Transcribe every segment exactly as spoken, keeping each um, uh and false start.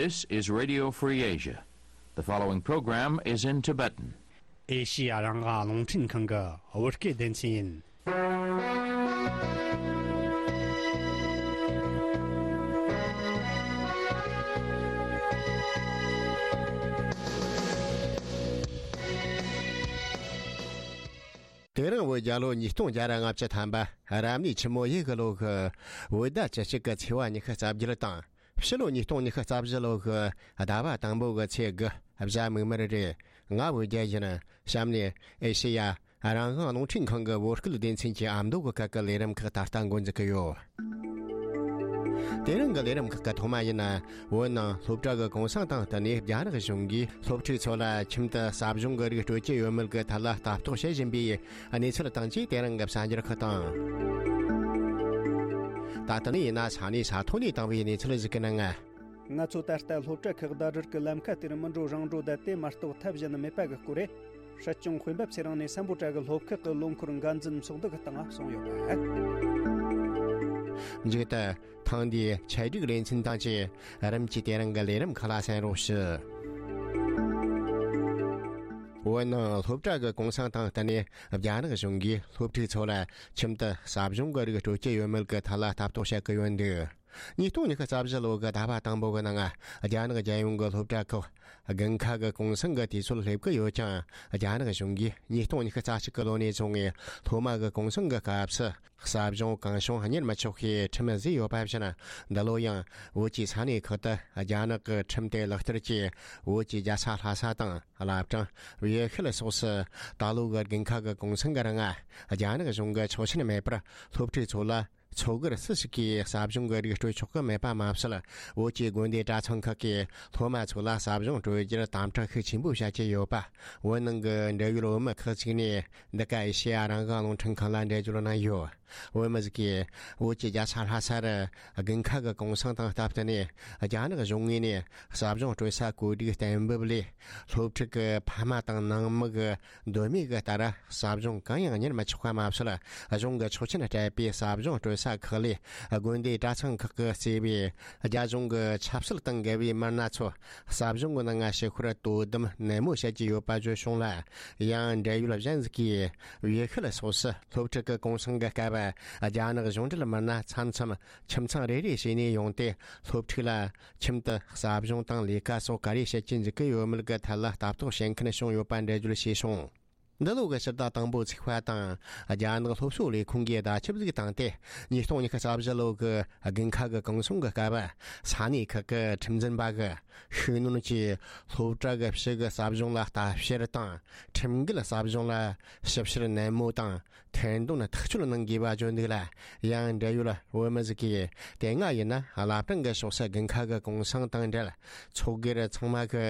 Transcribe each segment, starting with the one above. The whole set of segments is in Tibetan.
This is Radio Free Asia. The following program is in Tibetan. ཨེ་ཤི་ཡ་རང་དབང་རླུང་འཕྲིན་ཁང་གི་བོད་སྐད་སྡེ་ཚན་ཡིན། དེ་རིང་བོད་རྒྱལ་ལོ་ཉིས་སྟོང་བརྒྱ་ར་ལྔ་བཅུ་ཐམ་པ་རབ་གནས་ཆུ་མོ་ཡོས་གི་ལོ་གི་བོད་ཟླ་བཅུ་གཅིག་གི་ཚེས་པ་ཉི་ཤུ་རྩ་བརྒྱད་དང་། ཕྱི་ལོ་ཉིས་སྟོང་ཉི་ཤུ་རྩ་བཞི་ལོ་གི་ཟླ་བ་དང་པོ་གི་ཚེས་དགུ་གཟའ་མིག་དམར་རེད། ང་བོད་རྒྱལ་ཡིན། གཤམ་ནས་ཨེ་ཤེ་ཡ་རང་དབང་རླུང་འཕྲིན་ཁང་གི་བོད་སྐད་སྡེ་ཚན་གྱི་ཨ་མདོ་གི་སྐད་ཀྱི་ལས་རིམ་ཁག་ད་ལྟ་འགོ་འཛུགས་ཀྱི་ཡོད། དེ་རིང་གི་ལས་རིམ་ཁག་གི་ཐོག་མ་ཡིན་ན། བོད་ནང་སློབ་གྲྭ་གི་གུང་སེང་དང་བསྟུན་ནས་རྒྱ་ནག་གཞུང་གིས་སློབ་ཕྲུག་ཚོ་ལ་ཁྱིམ་དུ་ཟབ་སྦྱོང་གི་རིགས་སྤྲོད་ཀྱི་ཡོད་མེད་ཀྱི་ཐད་ལ་ལྟ་རྟོག་བྱེད་བཞིན་པའི་གནས་ཚུལ་དང་བཅས་དེ་རིང་གི་གསར་འགྱུར་ཁག་དང་། ད་ལྟ་ནས་ཡིན་ན་ས་གནས་ས་ཐོག་ནས་བཏང་བའི་གནས་ཚུལ་ཞིག་གི་ནང་། ང་ཚོ་ད་ལྟ་སློབ་གྲྭ་ཁག་ཟླ་སྒྲིལ་གྱི་ལམ་ཁ་དེར་མི་འགྲོ་རང་འགྲོ་བསྡད་དེ་མ་གཏོགས་ཐབས་གཞན་མེད་པ་གི་སྐོར་རེད། སྲིད་སྐྱོང་དཔོན་པོ་ཚེ་རིང་ནས་སམ་བྷོ་ཊ་གི་སློབ་ཁག་གི་ལོ་འཁོར་འགན་འཛིན་ཚོགས་འདུ་གི་སྟེང་གསུངས་ཡོད་པ། མཇུག་ཏུ་ཐེངས་འདིའི་ཆེད་སྒྲིག་ལེ་ཚན་དང་བཅས་རིམ་གྱིས་དེ་རིང་གི་ལས་རིམ་ཁག་ལ་གསན་རོགས་ཞུ། བོད་ནང་སློབ་གྲྭ་གི་གུང་སེང་དང་བསྟུན་ནས་རྒྱ་ནག་གཞུང་གིས་སློབ་ཕྲུག་ཚོ་ལ་ཁྱིམ་དུ་ཟབ་སྦྱོང་གི་རིགས་སྤྲོད་ཀྱི་ཡོད་མེད་ཀྱི་ཐད་ལ་ལྟ་རྟོག་བྱེད་ཀྱི་ཡོད་འདུག། ཉིས་སྟོང་ཉི་ཤུ་རྩ་བཞི་ལོ་གི་ཟླ་བ་དང་པོ་གི་ནང་རྒྱ་ནག་རྒྱལ་ཡོངས་ཀྱི་སློབ་གྲྭ་ཁག་དགུན་ཁ་གི་གུང་སེང་གི་དུས་ཚོད་སླེབས་ཀྱི་ཡོད་ཀྱང་། རྒྱ་ནག་གཞུང་གིས་ཉིས་སྟོང་ཉི་ཤུ་རྩ་གཅིག་གི་ལོ་ནས་བཟུང་ངེ་སློབ་མ་གི་གུང་སེང་གི་སྐབས་སུ་ཟབ་སྦྱོང་གང་བྱུང་གཉེར་མི་ཆོག་པའི་ཁྲིམས་བཟོས་ཡོད་པ་བཞིན། འདི་ལོ་ཡང་བོད་ཀྱི་ས་གནས་ཁག་ཏུ་རྒྱ་ནག་གི་ཁྲིམས་དེ་ལག་བསྟར་གྱིས་བོད་ཀྱི་རྒྱལ་ས་ལྷ་ས་དང་། བླ་བྲང་། བྱེ་ཤུལ་སོགས་སུ་ད་ལོ་གི་དགུན་ཁ་གི་གུང་སེང་གི་རིང་རྒྱ་ནག་གཞུང་གི་ཆོག་མཆན་མེད་པར་སློབ་ཕྲུག་ཚོ་ལ་ཚོགས་སྒེར་སུ་ཞིག་གིས་ཟབ་སྦྱོང་གི་རིགས་སྤྲོད་ཆོག་གི་མེད་པ་མ་ཟད། བོད་ཀྱི་དགོན་སྡེ་གྲྭ་ཚང་ཁག་གིས་སློབ་མ་ཚོ་ལ་ཟབ་སྦྱོང་སྤྲོད་རྒྱུར་དམ་དྲག་ཤུགས་ཆེན་པོ་བྱ་ཀྱི་ཡོད་པ། བོད་ནང་གི་འབྲེལ་ཡོད་བོད་མི་ཁག་ཅིག་ནས་འདི་ག་ཨེ་ཤེ་ཡ་རང་དབང་རླུང་འཕྲིན་ཁང་ལ་འགྲེལ་བརྗོད་གནང་ཡོད། བོད་མི་ཟིག་གིས་བོད་ཀྱི་རྒྱལ་ས་ལྷ་ས་རུ་དགུན་ཁ་གི་གུང་སེང་དང་སྟབས་བསྟུན་ནས་རྒྱ་ནག་གཞུང་ངོས་ནས་ཟབ་སྦྱོང་སྤྲོད་ས་བཀོད་སྒྲིག་གཏན་འབེབས་ལས། སློབ་ཕྲུག་གི་ཕ་མ་དང་ནང་མི་གི་འདོད་མོས་ཀྱི་ལྟར་ཟབ་སྦྱོང་གང་ཡང་གཉེར་མི་ཆོག་པ་མ་ཟད། གཞུང་གི་ཆོག་མཆན་སྤྲད་པའི་ཟབ་སྦྱོང་སྤྲོད་ས་ཁག་ལས་དགོན་སྡེ་གྲྭ་ཚང་ཁག་གིས་གཙོས་པའི་རྒྱ་གཞུང་གི་ཆབ་སྲིད་དང་འགལ་བའི་མི་སྣ་ཚོ་ཟབ་སྦྱོང་གི་ནང་ཞུགས་པར་དོ་དམ་ནན་མོ་བྱེད་ཀྱི་ཡོད་པ་བརྗོད་བྱུང་ལ། ཡང་འབྲེལ་ཡོད་གཞན་ཟིག་གིས་བྱེ་ཤུལ་སོགས་སུ་སློབ་ཕྲུག་གི་གུང་སེང་གི་སྐབས་རྒྱ་ནག་གཞུང་འབྲེལ་མི་སྣ་མཚམས་མཚམས་ཁྱིམ་ཚང་རེ་རེ་བྱས་ནས་ཡོང་སྟེ་སློབ་ཕྲུག་ལ་ཁྱིམ་དུ་ཟབ་སྦྱོང་དང་ལས་ཀ་སོགས་ག་རེ་བྱེད་ཀྱི་འཇུག་གི་ཡོད་མེད་ཀྱི་ཐད་ལ་ལྟ་རྟོག་བྱེད་མཁན་བྱུང་ཡོད་པ་འགྲེལ་བརྗོད་བྱས་བྱུང་། འདི་ལོ་གི་ཕྱི་ཟླ་དང་པོ་ཚེས་པ་དང་རྒྱ་ནག་སློབ་གསོ་ལས་ཁུངས་ཀྱིས་བརྡ་ཁྱབ་ཟིག་བཏང་སྟེ། ཉིས་སྟོང་ཉི་ཤུ་རྩ་བཞི་ལོ་གི་དགུན་ཁ་གི་གུང་སེང་གི་སྐབས་ས་གནས་ཁག་གི་ཁྲིམས་འཛིན་པ་གིས་ཤུགས་སྣོན་གྱིས་སློབ་གྲྭ་གི་ཕྱི་གི་ཟབ་སྦྱོང་ལ་ལྟ་བཤེར་དང་ཁྲིམས་འགལ་ཟབ་སྦྱོང་ལ་ཞིབ་བཤེར་ནན་མོ་དང་ཐེར་འདོན་ཐག་གཅོད་གནང་དགོས་པ་བརྗོད་འདུག་ལ། ཡང་འབྲེལ་ཡོད་བོད་མི་ཟིག་གིས་དེ་སྔ་ཡིན་ན་བླ་བྲང་གི་ཕྱོགས་སུ་དགུན་ཁ་གི་གུང་སེང་དང་འབྲེལ། ཚོགས་སྒེར་ཚང་མ་གི་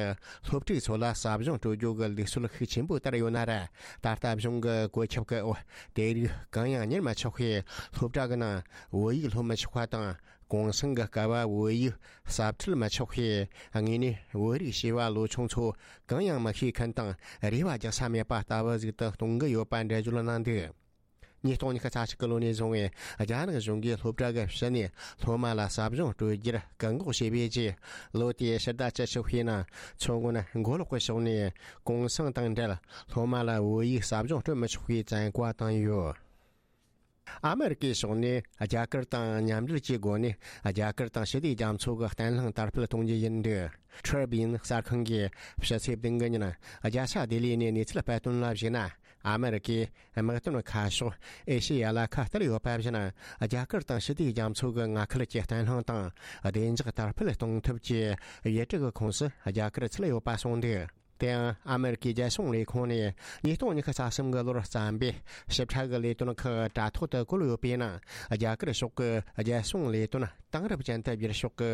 སློབ་ཕྲུག་ཚོ་ལ་ཟབ་སྦྱོང་སྤྲོད་རྒྱུ་གི་ལུགས་སྲོལ་ཤུགས་ཆེན་པོ་ལྟར་ཡོད་ན་ར། ད་ལྟ་གཞུང་གི་བཀོད་ཁྱབ་ཀྱི་འོག་དེ་རིགས་གང་ཡང་གཉེར་མ་ཆོག་པས། སློབ་གྲྭ་གི་ནང་བོད་ཡིག་སློབ་མི་ཆོག་པ་དང་། གུང་སེང་གི་སྐབས་བོད་ཡིག་ཟབ་ཁྲིད་མི་ཆོག་པས། དངོས་གནས་བོད་རིགས་བྱིས་པ་ལོ་ཆུང་ཚོ་གང་ཡང་མི་ཤེས་མཁན་དང་རེ་བ་རྒྱག་ས་མེད་པ་ལྟ་བུ་ཟིག་ཏུ་གཏོང་གི་ཡོད་པ་འགྲེལ་བརྗོད་གནང་འདུག། ཉིས་སྟོང་ཉི་ཤུ་རྩ་གཅིག་གི་ལོ་ནས་བཟུང་བའི་རྒྱ་ནག་གཞུང་གིས་སློབ་གྲྭ་གི་ཕྱི་ནས་སློབ་མ་ལ་ཟབ་སྦྱོང་སྤྲོད་རྒྱུར་བཀག་འགོག་བྱས་པའི་རྗེས། ལོ་དེའི་ཕྱི་ཟླ་བཅུ་གཅིག་པའི་ནང་མཚོ་སྔོན་མགོ་ལོག་གི་ཕྱོགས་ནས་གུང་སེང་དང་འབྲེལ་སློབ་མ་ལ་བོད་ཡིག་ཟབ་སྦྱོང་སྤྲོད་མི་ཆོག་པའི་བཙན་བཀའ་བཏང་ཡོད། ཨ་མེ་རི་ཀའི་ཕྱོགས་ནས་རྒྱ་གར་དང་མཉམ་འབྲེལ་གྱི་སྒོ་ནས་རྒྱ་གར་དང་ཞི་བདེ་རྒྱ་མཚོ་གི་བརྟན་ལྷིང་དར་སྤེལ་གཏོང་རྒྱུ་ཡིན་འདུག། Tribune་གསར་ཁང་གིས་ཕྱི་ཚེས་བདུན་གི་ཉིན་རྒྱལ་ས་ལྡི་ལི་ནས་གནས་ཚུལ་སྤེལ་དོན་ལ་གཞིགས་ན། ཨ་མེ་རི་ཀས་དམག་དོན་ཁ་ཕྱོགས་ཨེ་ཤེ་ཡ་ལ་ཁ་གཏད་ཡོད་པ་བཞིན། རྒྱ་གར་དང་ཞི་བདེ་རྒྱ་མཚོ་གི་མངའ་ཁུལ་གྱི་བརྟན་ལྷིང་དང་བདེ་འཇགས་དར་སྤེལ་གཏོང་ཐབས་ཀྱི་ཡུལ་གྲུ་གི་ཁོངས་སུ་རྒྱ་གར་ཚུད་ཡོད་པ་གསུངས་འདུག། དེ་ཡང་ཨ་མེ་རི་ཀའི་རྒྱལ་སྲུང་ལས་ཁུངས་ནས་ཉིས་སྟོང་ཉི་ཤུ་རྩ་གསུམ་གི་ལོར་བརྩམས་པའི་ཞིབ་ཕྲ་གི་ལས་དོན་ཁག་དྲ་ཐོག་ཏུ་བཀོད་ཡོད་པའི་ནང་། རྒྱ་གར་ཕྱོགས་ཀྱི་རྒྱལ་སྲུང་ལས་དོན་དེང་རབས་ཅན་དུ་བསྒྱུར་ཕྱོགས་ཀྱི་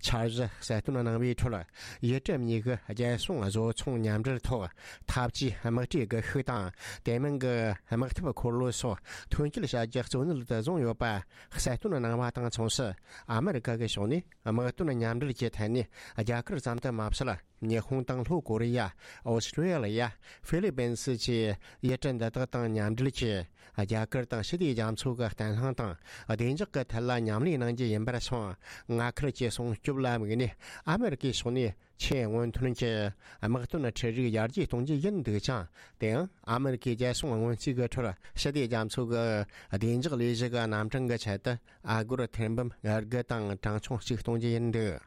འཆར་གཞི་གསལ་སྟོན་གནང་བའི་ཁྲོད། ཡུལ་གྲུ་གཉིས་ཀྱི་རྒྱལ་སྲུང་བཟོ་ཚོང་མཉམ་འབྲེལ་ཐོག་འཐབ་ཇུས་དམག་གྲུའི་སྒུལ་ཤུགས་དང་། དེ་མིན་གྱི་དམག་འཐབ་འཁོར་ལོ་སོགས་ཐོན་སྐྱེད་བྱ་རྒྱུ་གཙོ་གནད་དུ་བཟུང་ཡོད་པ་གསལ་སྟོན་གནང་བ་དང་མཚུངས་སུ། ཨ་མེ་རི་ཀ་གི་ཕྱོགས་ནས་དམག་དོན་མཉམ་འབྲེལ་གྱི་ཐད་ནས་རྒྱ་གར་ཙམ་དུ་མ་ཟད། ཉི་ཧོང་དང་ལྷོ་ཀོ་རི་ཡ། ཨོ་སི་ཀྲི་ཡ། ཧྥི་ལི་པིན་སི་བཅས་ཡུལ་གྲུ་འདི་དག་དང་མཉམ་འབྲེལ་གྱིས། རྒྱ་གར་དང་ཞི་བདེ་རྒྱ་མཚོ་གི་བརྟན་ལྷིང་དང་བདེ་འཇགས་ཀྱི་ཐད་ལ་མཉམ་ལས་གནང་རྒྱུ་ཡིན་པར་སོང་། མངའ་ཁུལ་གྱི་སྲུང་སྐྱོབ་ལ་དམིགས་ནས་ཨ་མེ་རི་ཀའི་ཕྱོགས་ནས་ཆེས་སྔོན་ཐོན་གྱི་དམག་དོན་འཕྲུལ་རིགས་ཡར་རྒྱས་གཏོང་རྒྱུ་ཡིན་འདུག་ཅིང་། དེའང་ཨ་མེ་རི་ཀའི་རྒྱལ་སྲུང་སྔོན་རྩིས་ཀྱི་ཁྲོད་ཞི་བདེ་རྒྱ་མཚོ་གི་བདེ་འཇགས་ལས་གཞི་གི་རྣམ་གྲངས་ཀྱི་ཆེད་དུ། ཨ་སྒོར་ཐེར་འབུམ་དགུ་དང་གྲངས་ཆུང་གཅིག་གཏོང་རྒྱུ་ཡིན་འདུག།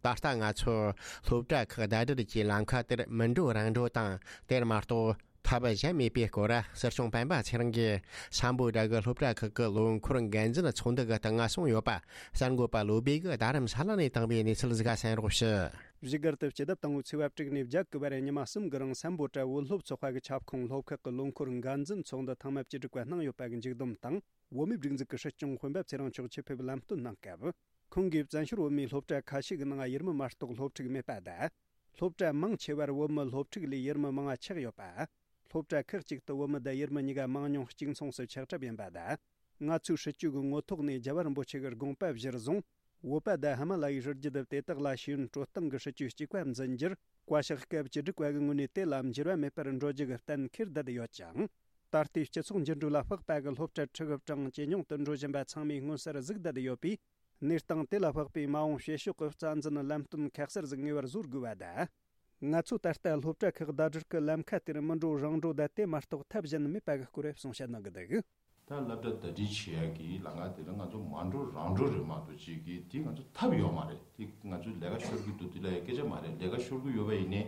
ད་ལྟ་ང་ཚོར་སློབ་གྲྭ་ཁག་ཟླ་སྒྲིལ་གྱི་ལམ་ཁ་དེར་མི་འགྲོ་རང་འགྲོ་དང་། དེར་མ་གཏོགས་ཐབས་གཞན་མེད་པའི་སྐོར། སྲིད་སྐྱོང་སྤེན་པ་ཚེ་རིང་གིས་སམ་བྷོ་ཊ་གི་སློབ་གྲྭ་ཁག་གི་ལོ་འཁོར་འགན་འཛིན་ཚོགས་འདུ་གི་སྟེང་གསུངས་ཡོད་པ་གསར་འགོད་པ་བློ་བྷེ་གིས་རྡ་རམ་ས་ལ་ནས་བཏང་བའི་གནས་ཚུལ་ཟིག་ག་གསན་རོགས་ཞུ། བཞུགས་སྒར་དུ་སྤྱི་ཟླ་དང་པོའི་ཚེས་པ་དྲུག་ནས་བརྒྱད་གི་བར་ཉི་མ་གསུམ་གི་རིང་སམ་བྷོ་ཊ་བོད་སློབ་ཚོགས་པ་གི་ཁྱབ་ཁོངས་སློབ་ཁག་གི་ལོ་འཁོར་འགན་འཛིན་ཚོགས་འདུ་ཐེངས་མ་བཅུ་དྲུག་པ་གནང་ཡོད་པ་གི་མཇུག་བསྡོམས་དང་། བོད་མིའི་སྒྲིག་འཛུགས་ཀྱི་སྲིད་སྐྱོང་སྤེན་པ་ཚེ་རིང་མཆོག་ཆེད་ཕེབས་ལམ་སྟོན་གནང་སྐབས། ཁོང་གིས་བཙན་བྱོལ་བོད་མིའི་སློབ་གྲྭ་ཁ་ཤས་ཀྱི་ནང་ཡུལ་མི་མ་གཏོགས་སློབ་ཕྲུག་མེད་པ་དང་། སློབ་གྲྭ་མང་ཆེ་བར་བོད་མི་སློབ་ཕྲུག་ལས་ཡུལ་མི་མང་བ་ཆགས་ཡོད་པ། སློབ་གྲྭ་ཁག་ཅིག་ཏུ་བོད་མི་དང་ཡུལ་མི་གཉིས་ཀ་མང་ཉུང་གཅིག་མཚུངས་སུ་ཆགས་གྲབས་ཡིན་པ་དང་། ང་ཚོའི་སྲིད་ཇུས་ཀྱི་ངོ་ཐོག་ནས་རྒྱལ་བ་རིན་པོ་ཆེ་གི་དགོངས་པ་གཞིར་བཟུང་། བོད་པ་དང་ཧི་མ་ལ་ཡའི་རི་རྒྱུད་དེ་དག་ལ་ཤེས་ཡོན་སྤྲོད་སྟངས་ཀྱི་སྲིད་ཇུས་གཅིག་པ་འཛིན་རྒྱུར། བཀའ་ཤག་སྐབས་བཅུ་དྲུག་པ་གི་ངོས་ནས་དེ་ལ་འགྱུར་བ་མེད་པར་འགྲོ་རྒྱུ་གི་གཏན་འཁེལ་བསྡད་ཡོད་ཅིང་། ད་ལྟའི་སྤྱི་ཚོགས་འགྱུར་འགྲོས་ལ་དཔག་པ་གི་སློབ་གྲྭ་ཁྲི་གི་གྲངས་ཇེ་ཉུང་དུ་འགྲོ་བཞིན་པ་ཚང་མས་མངོན་གསལ་གཟིགས་བསྡད་ཡོད་པས། གནས་སྟངས་དེ་ལ་དཔག་པའི་མ་འོངས་བྱེད་ཕྱོགས་ཀྱི་རྩ་འཛིན་ལམ་སྟོན་ཁ་གསལ་ཟིག་ངེས་པར་བཟོ་དགོས་པ་དང་། ང་ཚོས་ད་ལྟ་སློབ་གྲྭ་ཁག་ཟླ་སྒྲིལ་གྱི་ལམ་ཁ་དེར་མི་འགྲོ་རང་འགྲོ་དང་དེ་མ་གཏོགས་ཐབས་གཞན་མེད་པ་གི་སྐོར་གསུང་བཤད་གནང་གི་འདུག། ད་སློབ་གྲྭ་ཟླ་སྒྲིལ་བྱེད་ཡག་གི་ལམ་ཁ་དེ་ལ་ང་ཚོ་མ་འགྲོ་རང་འགྲོ་རེད་མ་གཏོགས་ཅིག་གི་དེ་ང་ཚོ་ཐབས་ཡོད་མ་རེད། དེ་ང་ཚོས་ལས་ཀ་ཤོར་གི་འདུག་དེ་ལ་ཡང་སྐད་ཆ་མ་རེད། ལས་ཀ་ཤོར་གི་ཡོད་པ་ཡིན་ནའི་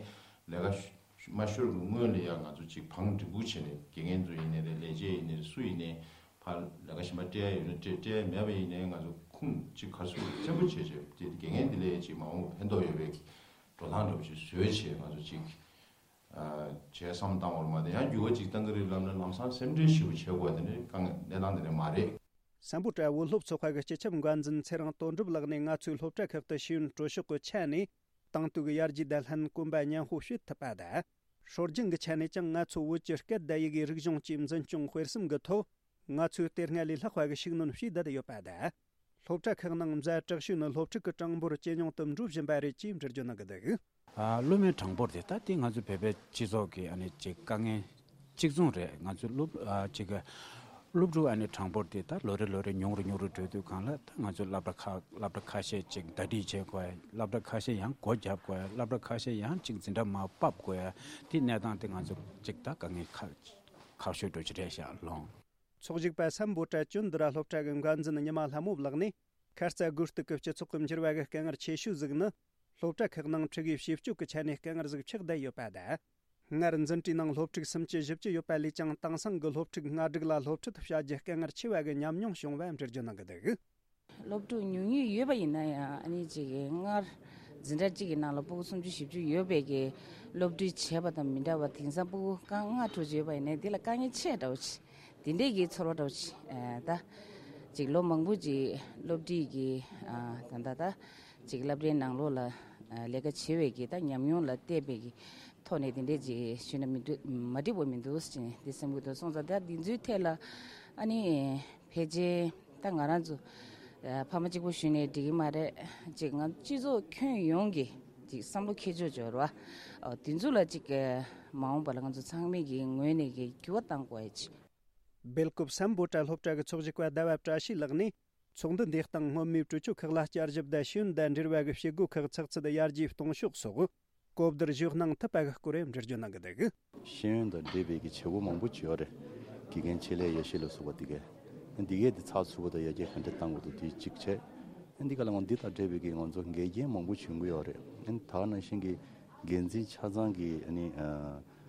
ལས་ཀ་ཤ་མ་ཤོར་གི་སྔོན་ལ་ཡང་ང་ཚོ་ཅིག་བང་སྒྲིག་འབུག་བྱས་ནས་དགེ་རྒན་ཚོ་ཡིན་ནའི་རེད། ལས་བྱེད་ཡིན་ནའི་རེད། སུ་ཡིན་ནའི་ཕར་ལས་ཀ་གཞན་པ་སྤྲད་ཡ་ཡོད་ན་སྤྲད། སྤྲད་ཡ་མེད་པ་ཡིན་ནའི་ང་ཚོ་ཁུངས་ཅིག་ག་རེ་ཟེར་བཙན་པོ་བྱས་བྱས་དེ་དགེ་རྒན་དེ་ལ་ཡང་ཅིག་མ་འོངས་ཕན་ཐོགས་ཡོད་པའི་འགྲོ་སྟངས་འདྲ་པོ་ཅིག་བཟོས་བྱས་ང་ཚོ་ཅིག་ཨ་བྱས་བསམ་བཏང་བར་མ་དེ་ཡང་འགྱུར་བ་ཅིག་གཏང་གི་རེད་ལབ་ན་ལམ་སང་སེམས་ཁྲལ་ཞེ་པོ་བྱེད་དགོས་པ་དེ་ནི་དཀའ་ངལ་གནས་སྟངས་དེ་འདྲ་མ་རེད། སམ་བྷོ་ཊ་བོད་སློབ་ཚོགས་པ་གི་སྤྱི་ཁྱབ་འགན་འཛིན་ཚེ་རིང་དོན་གྲུབ་ལགས་ནས་ང་ཚོའི་སློབ་གྲྭ་ཁག་ཏུ་ཤེས་ཡོན་སྤྲོད་ཕྱོགས་ཀྱི་ཆ་ནས་དེང་དུས་ཀྱི་ཡར་རྒྱས་དང་ལྷན་གོམ་པ་མཉམ་སྤོ་བྱེད་ཐུབ་པ་དང་། སྲོལ་རྒྱུན་གྱི་ཆ་ནས་ཀྱང་ང་ཚོ་བོད་ཀྱི་སྐད་དང་ཡི་གེའི་རིག་གཞུང་བཅས་འཛིན་སྐྱོང་སྤེལ་གསུམ་གྱི་ཐོག་ང་ཚོས་དེ་སྔ་ལས་ལྷག་པ་གི་ཤུགས་སྣོན་བྱས་བསྡད་ཡོད་པ་དང་། སློབ་གྲྭ་ཁག་ནང་མཛའ་དྲག་ཤོས་ནི་སློབ་ཕྲུག་གི་གྲངས་འབོར་ཇེ་ཉུང་དུ་འགྲོ་བཞིན་པ་རེད་ཅེས་འགྲེལ་བརྗོད་གནང་གི་འདུག། ཨ། སློབ་མའི་གྲངས་འབོར་དེ་ད་ལྟའི་ང་ཚོའི་བོད་པའི་སྤྱི་ཚོགས་ཀྱི་ཨ་ནི་ཅིག་དཀའ་ངལ་གཅིག་མཚུངས་རེད། ང་ཚོའི་སློབ་ཨ་ཅིག་གི་སློབ་ཕྲུག་ཨ་ནི་གྲངས་འབོར་དེ་ད་ལོ་རེ་ལོ་རེ་ཉུང་རུ་ཉུང་རུ་འགྲོ་དུས་གང་ལ་ད་ང་ཚོའི་སློབ་གྲྭ་ཁག་སློབ་གྲྭ་ཁ་ཤས་ཅིག་ཟླ་སྒྲིལ་བྱེད་དགོས། སློབ་གྲྭ་ཁ་ཤས་ཡང་སྒོ་བརྒྱབ་དགོས། སློབ་གྲྭ་ཁ་ཤས་ཡང་ཅིག་འཛིན་གྲྭ་མར་ཕབ་དགོས། དེའི་གནས་སྟངས་དེ་ང་ཚོ་ཅིག་ད་དཀའ་ངལ་ཁག་ཁག་ཤོས་འགྲོ་གི་རེད་ཤག་ལོང་། ཚོགས་ཞུགས་པ་སམ་བྷོ་ཊ་ཅོན་དི་ར་སློབ་གྲྭ་གི་འགན་འཛིན་ཉི་མ་ལྷ་མོ་ལགས་ནས། ཁ་རྩ་དགོས་གཏུག་གི་སྤྱི་ཚོགས་ཀྱི་འགྱུར་བ་གི་དཀའ་ངལ་ཆེ་ཤོས་ཟིག་ནི། སློབ་གྲྭ་ཁག་ནང་ཁྲིད་དགེ་བྱེད་སྤྱོད་ཀྱི་ཆ་ནས་དཀའ་ངལ་ཟིག་ཆགས་བསྡད་ཡོད་པ་དང་། སྔར་འཛིན་གྲྭའི་ནང་སློབ་ཕྲུག་སུམ་ཅུ་བཞི་བཅུ་ཡོད་པ་ལས་ཀྱང་དེང་སང་གི་སློབ་ཕྲུག་ལྔ་དྲུག་ལ་སློབ་ཁྲིད་བྱ་རྒྱུ་དཀའ་ངལ་ཆེ་བ་གི་ཉམས་མྱོང་བྱུང་བ་འགྲེལ་བརྗོད་གནང་གི་འདུག། སློབ་ཕྲུག་ཉུང་ཉུང་ཡོད་པ་ཡིན་ན་ཡང་ཨ་ནི་ཅིག་སྔར་འཛིན་གྲྭ་གཅིག་གི་ནང་ལ་སྤུ་གུ་སུམ་ཅུ་བཞི་བཅུ་ཡོད་པའི་གི་སློབ་ཁྲིད་བྱས་པ་དང་མི་འདྲ་བ། དེང་སང་སྤུ་གུ་རྐང་ལྔ་དྲུག་ཅུ་ཡོད་པ་ཡིན་ན་དེ་ལ་དཀའ་ངལ་ཆེ་འདྲ་བོ་ཅིག་དེ་འདྲས་ཀྱི་ཚོར་བ་འདྲ་བོ་ཅིག་ཨ་ད་ཅིག་ལོ་མང་པོ་ཅིག་སློབ་ཁྲིད་ཀྱི་ཨ་ད་ད་ད་ཅིག་སློབ་གྲྭའི་ནང་ལོགས་ལ་ཨ་ལས་ཀ་བྱེད་པའི་གི་ད་ཉམས་མྱོང་ལ་བལྟས་པའི་གི་ཐོག་ནས་དེ་འདྲས་ཅིག་ཞུས་ན་མི་འདུག་མ་འགྲིག་པ་མི་འདུག་ཅེས་དེ་སེམས་ཁུར་དུ་སོང་ཙང་། ད་འདི་ཚོའི་ཐད་ལ་ཨ་ནི་ཕལ་ཆེར་ད་ང་རང་ཚོ་ཨ་ཕ་མ་གཅིག་པོ་ཞུས་ནས་འགྲིག་གི་མ་རེད། ཅིག་ང་སྤྱི་ཚོགས་ཁྱོན་ཡོངས་ཀྱི་ཅིག་བསམ་བློ་འཁྱེར་ཕྱོགས་འབྱོར་བ་ཨ་དེ་ཚོ་ལ་ཅིག་ཨ་མ་འོངས་པ་ལ་ང་ཚོ་ཚང་མས་ཀྱི་ངོས་ནས་ཀྱི་འགྱུར་བ་གཏང་དགོས་ཡ་ཅིག། སྦེལ་ཀོབ་སམ་བྷོ་ཊ་སློབ་གྲྭ་གི་ཚོགས་ཞུགས་པ་ཟླ་བ་བཀྲ་ཤིས་ལགས་ནས། ཚོགས་འདུ་འདིའི་སྟེང་སྔོན་མའི་གྲོས་ཆོད་ཁག་ལ་བསྐྱར་ཞིབ་དང་ཤེས་ཡོན་དང་འབྲེལ་བ་གི་བྱེད་སྒོ་ཁག་ཚགས་ཚུད་ཡར་རྒྱས་གཏོང་ཕྱོགས་སོགས་གོ་བསྡུར་ཞུས་གནང་ཐུབ་པ་གི་སྐོར་འགྲེལ་བརྗོད་གནང་གི་འདུག། ཤེས་ཡོན་དང་འབྲེལ་བའི་གི་བྱེད་སྒོ་མང་པོ་ཅིག་ཡོད་རེད། དགེ་རྒན་ཆེད་ལས་ཡེ་ཤེས་ལ་སོགས་པ་དེ་གས། འདི་གས་དེ་ཚགས་ཚུད་པོ་དང་ཡར་རྒྱས་ག་འདྲ་གཏང་དགོས་འདུག་དེ་གཅིག་བྱས། འདི་ག་ལ་ང་འདི་དང་འབྲེལ་བའི་གི་ང་ཚོ་འགལ་རྐྱེན་མང་པོ་བྱུང་གི་ཡོད་རེད། ད་ག་ནང་བཞིན་གྱི་འགན་འཛིན་ཆ་ཚང་གི་ཨ་ནི་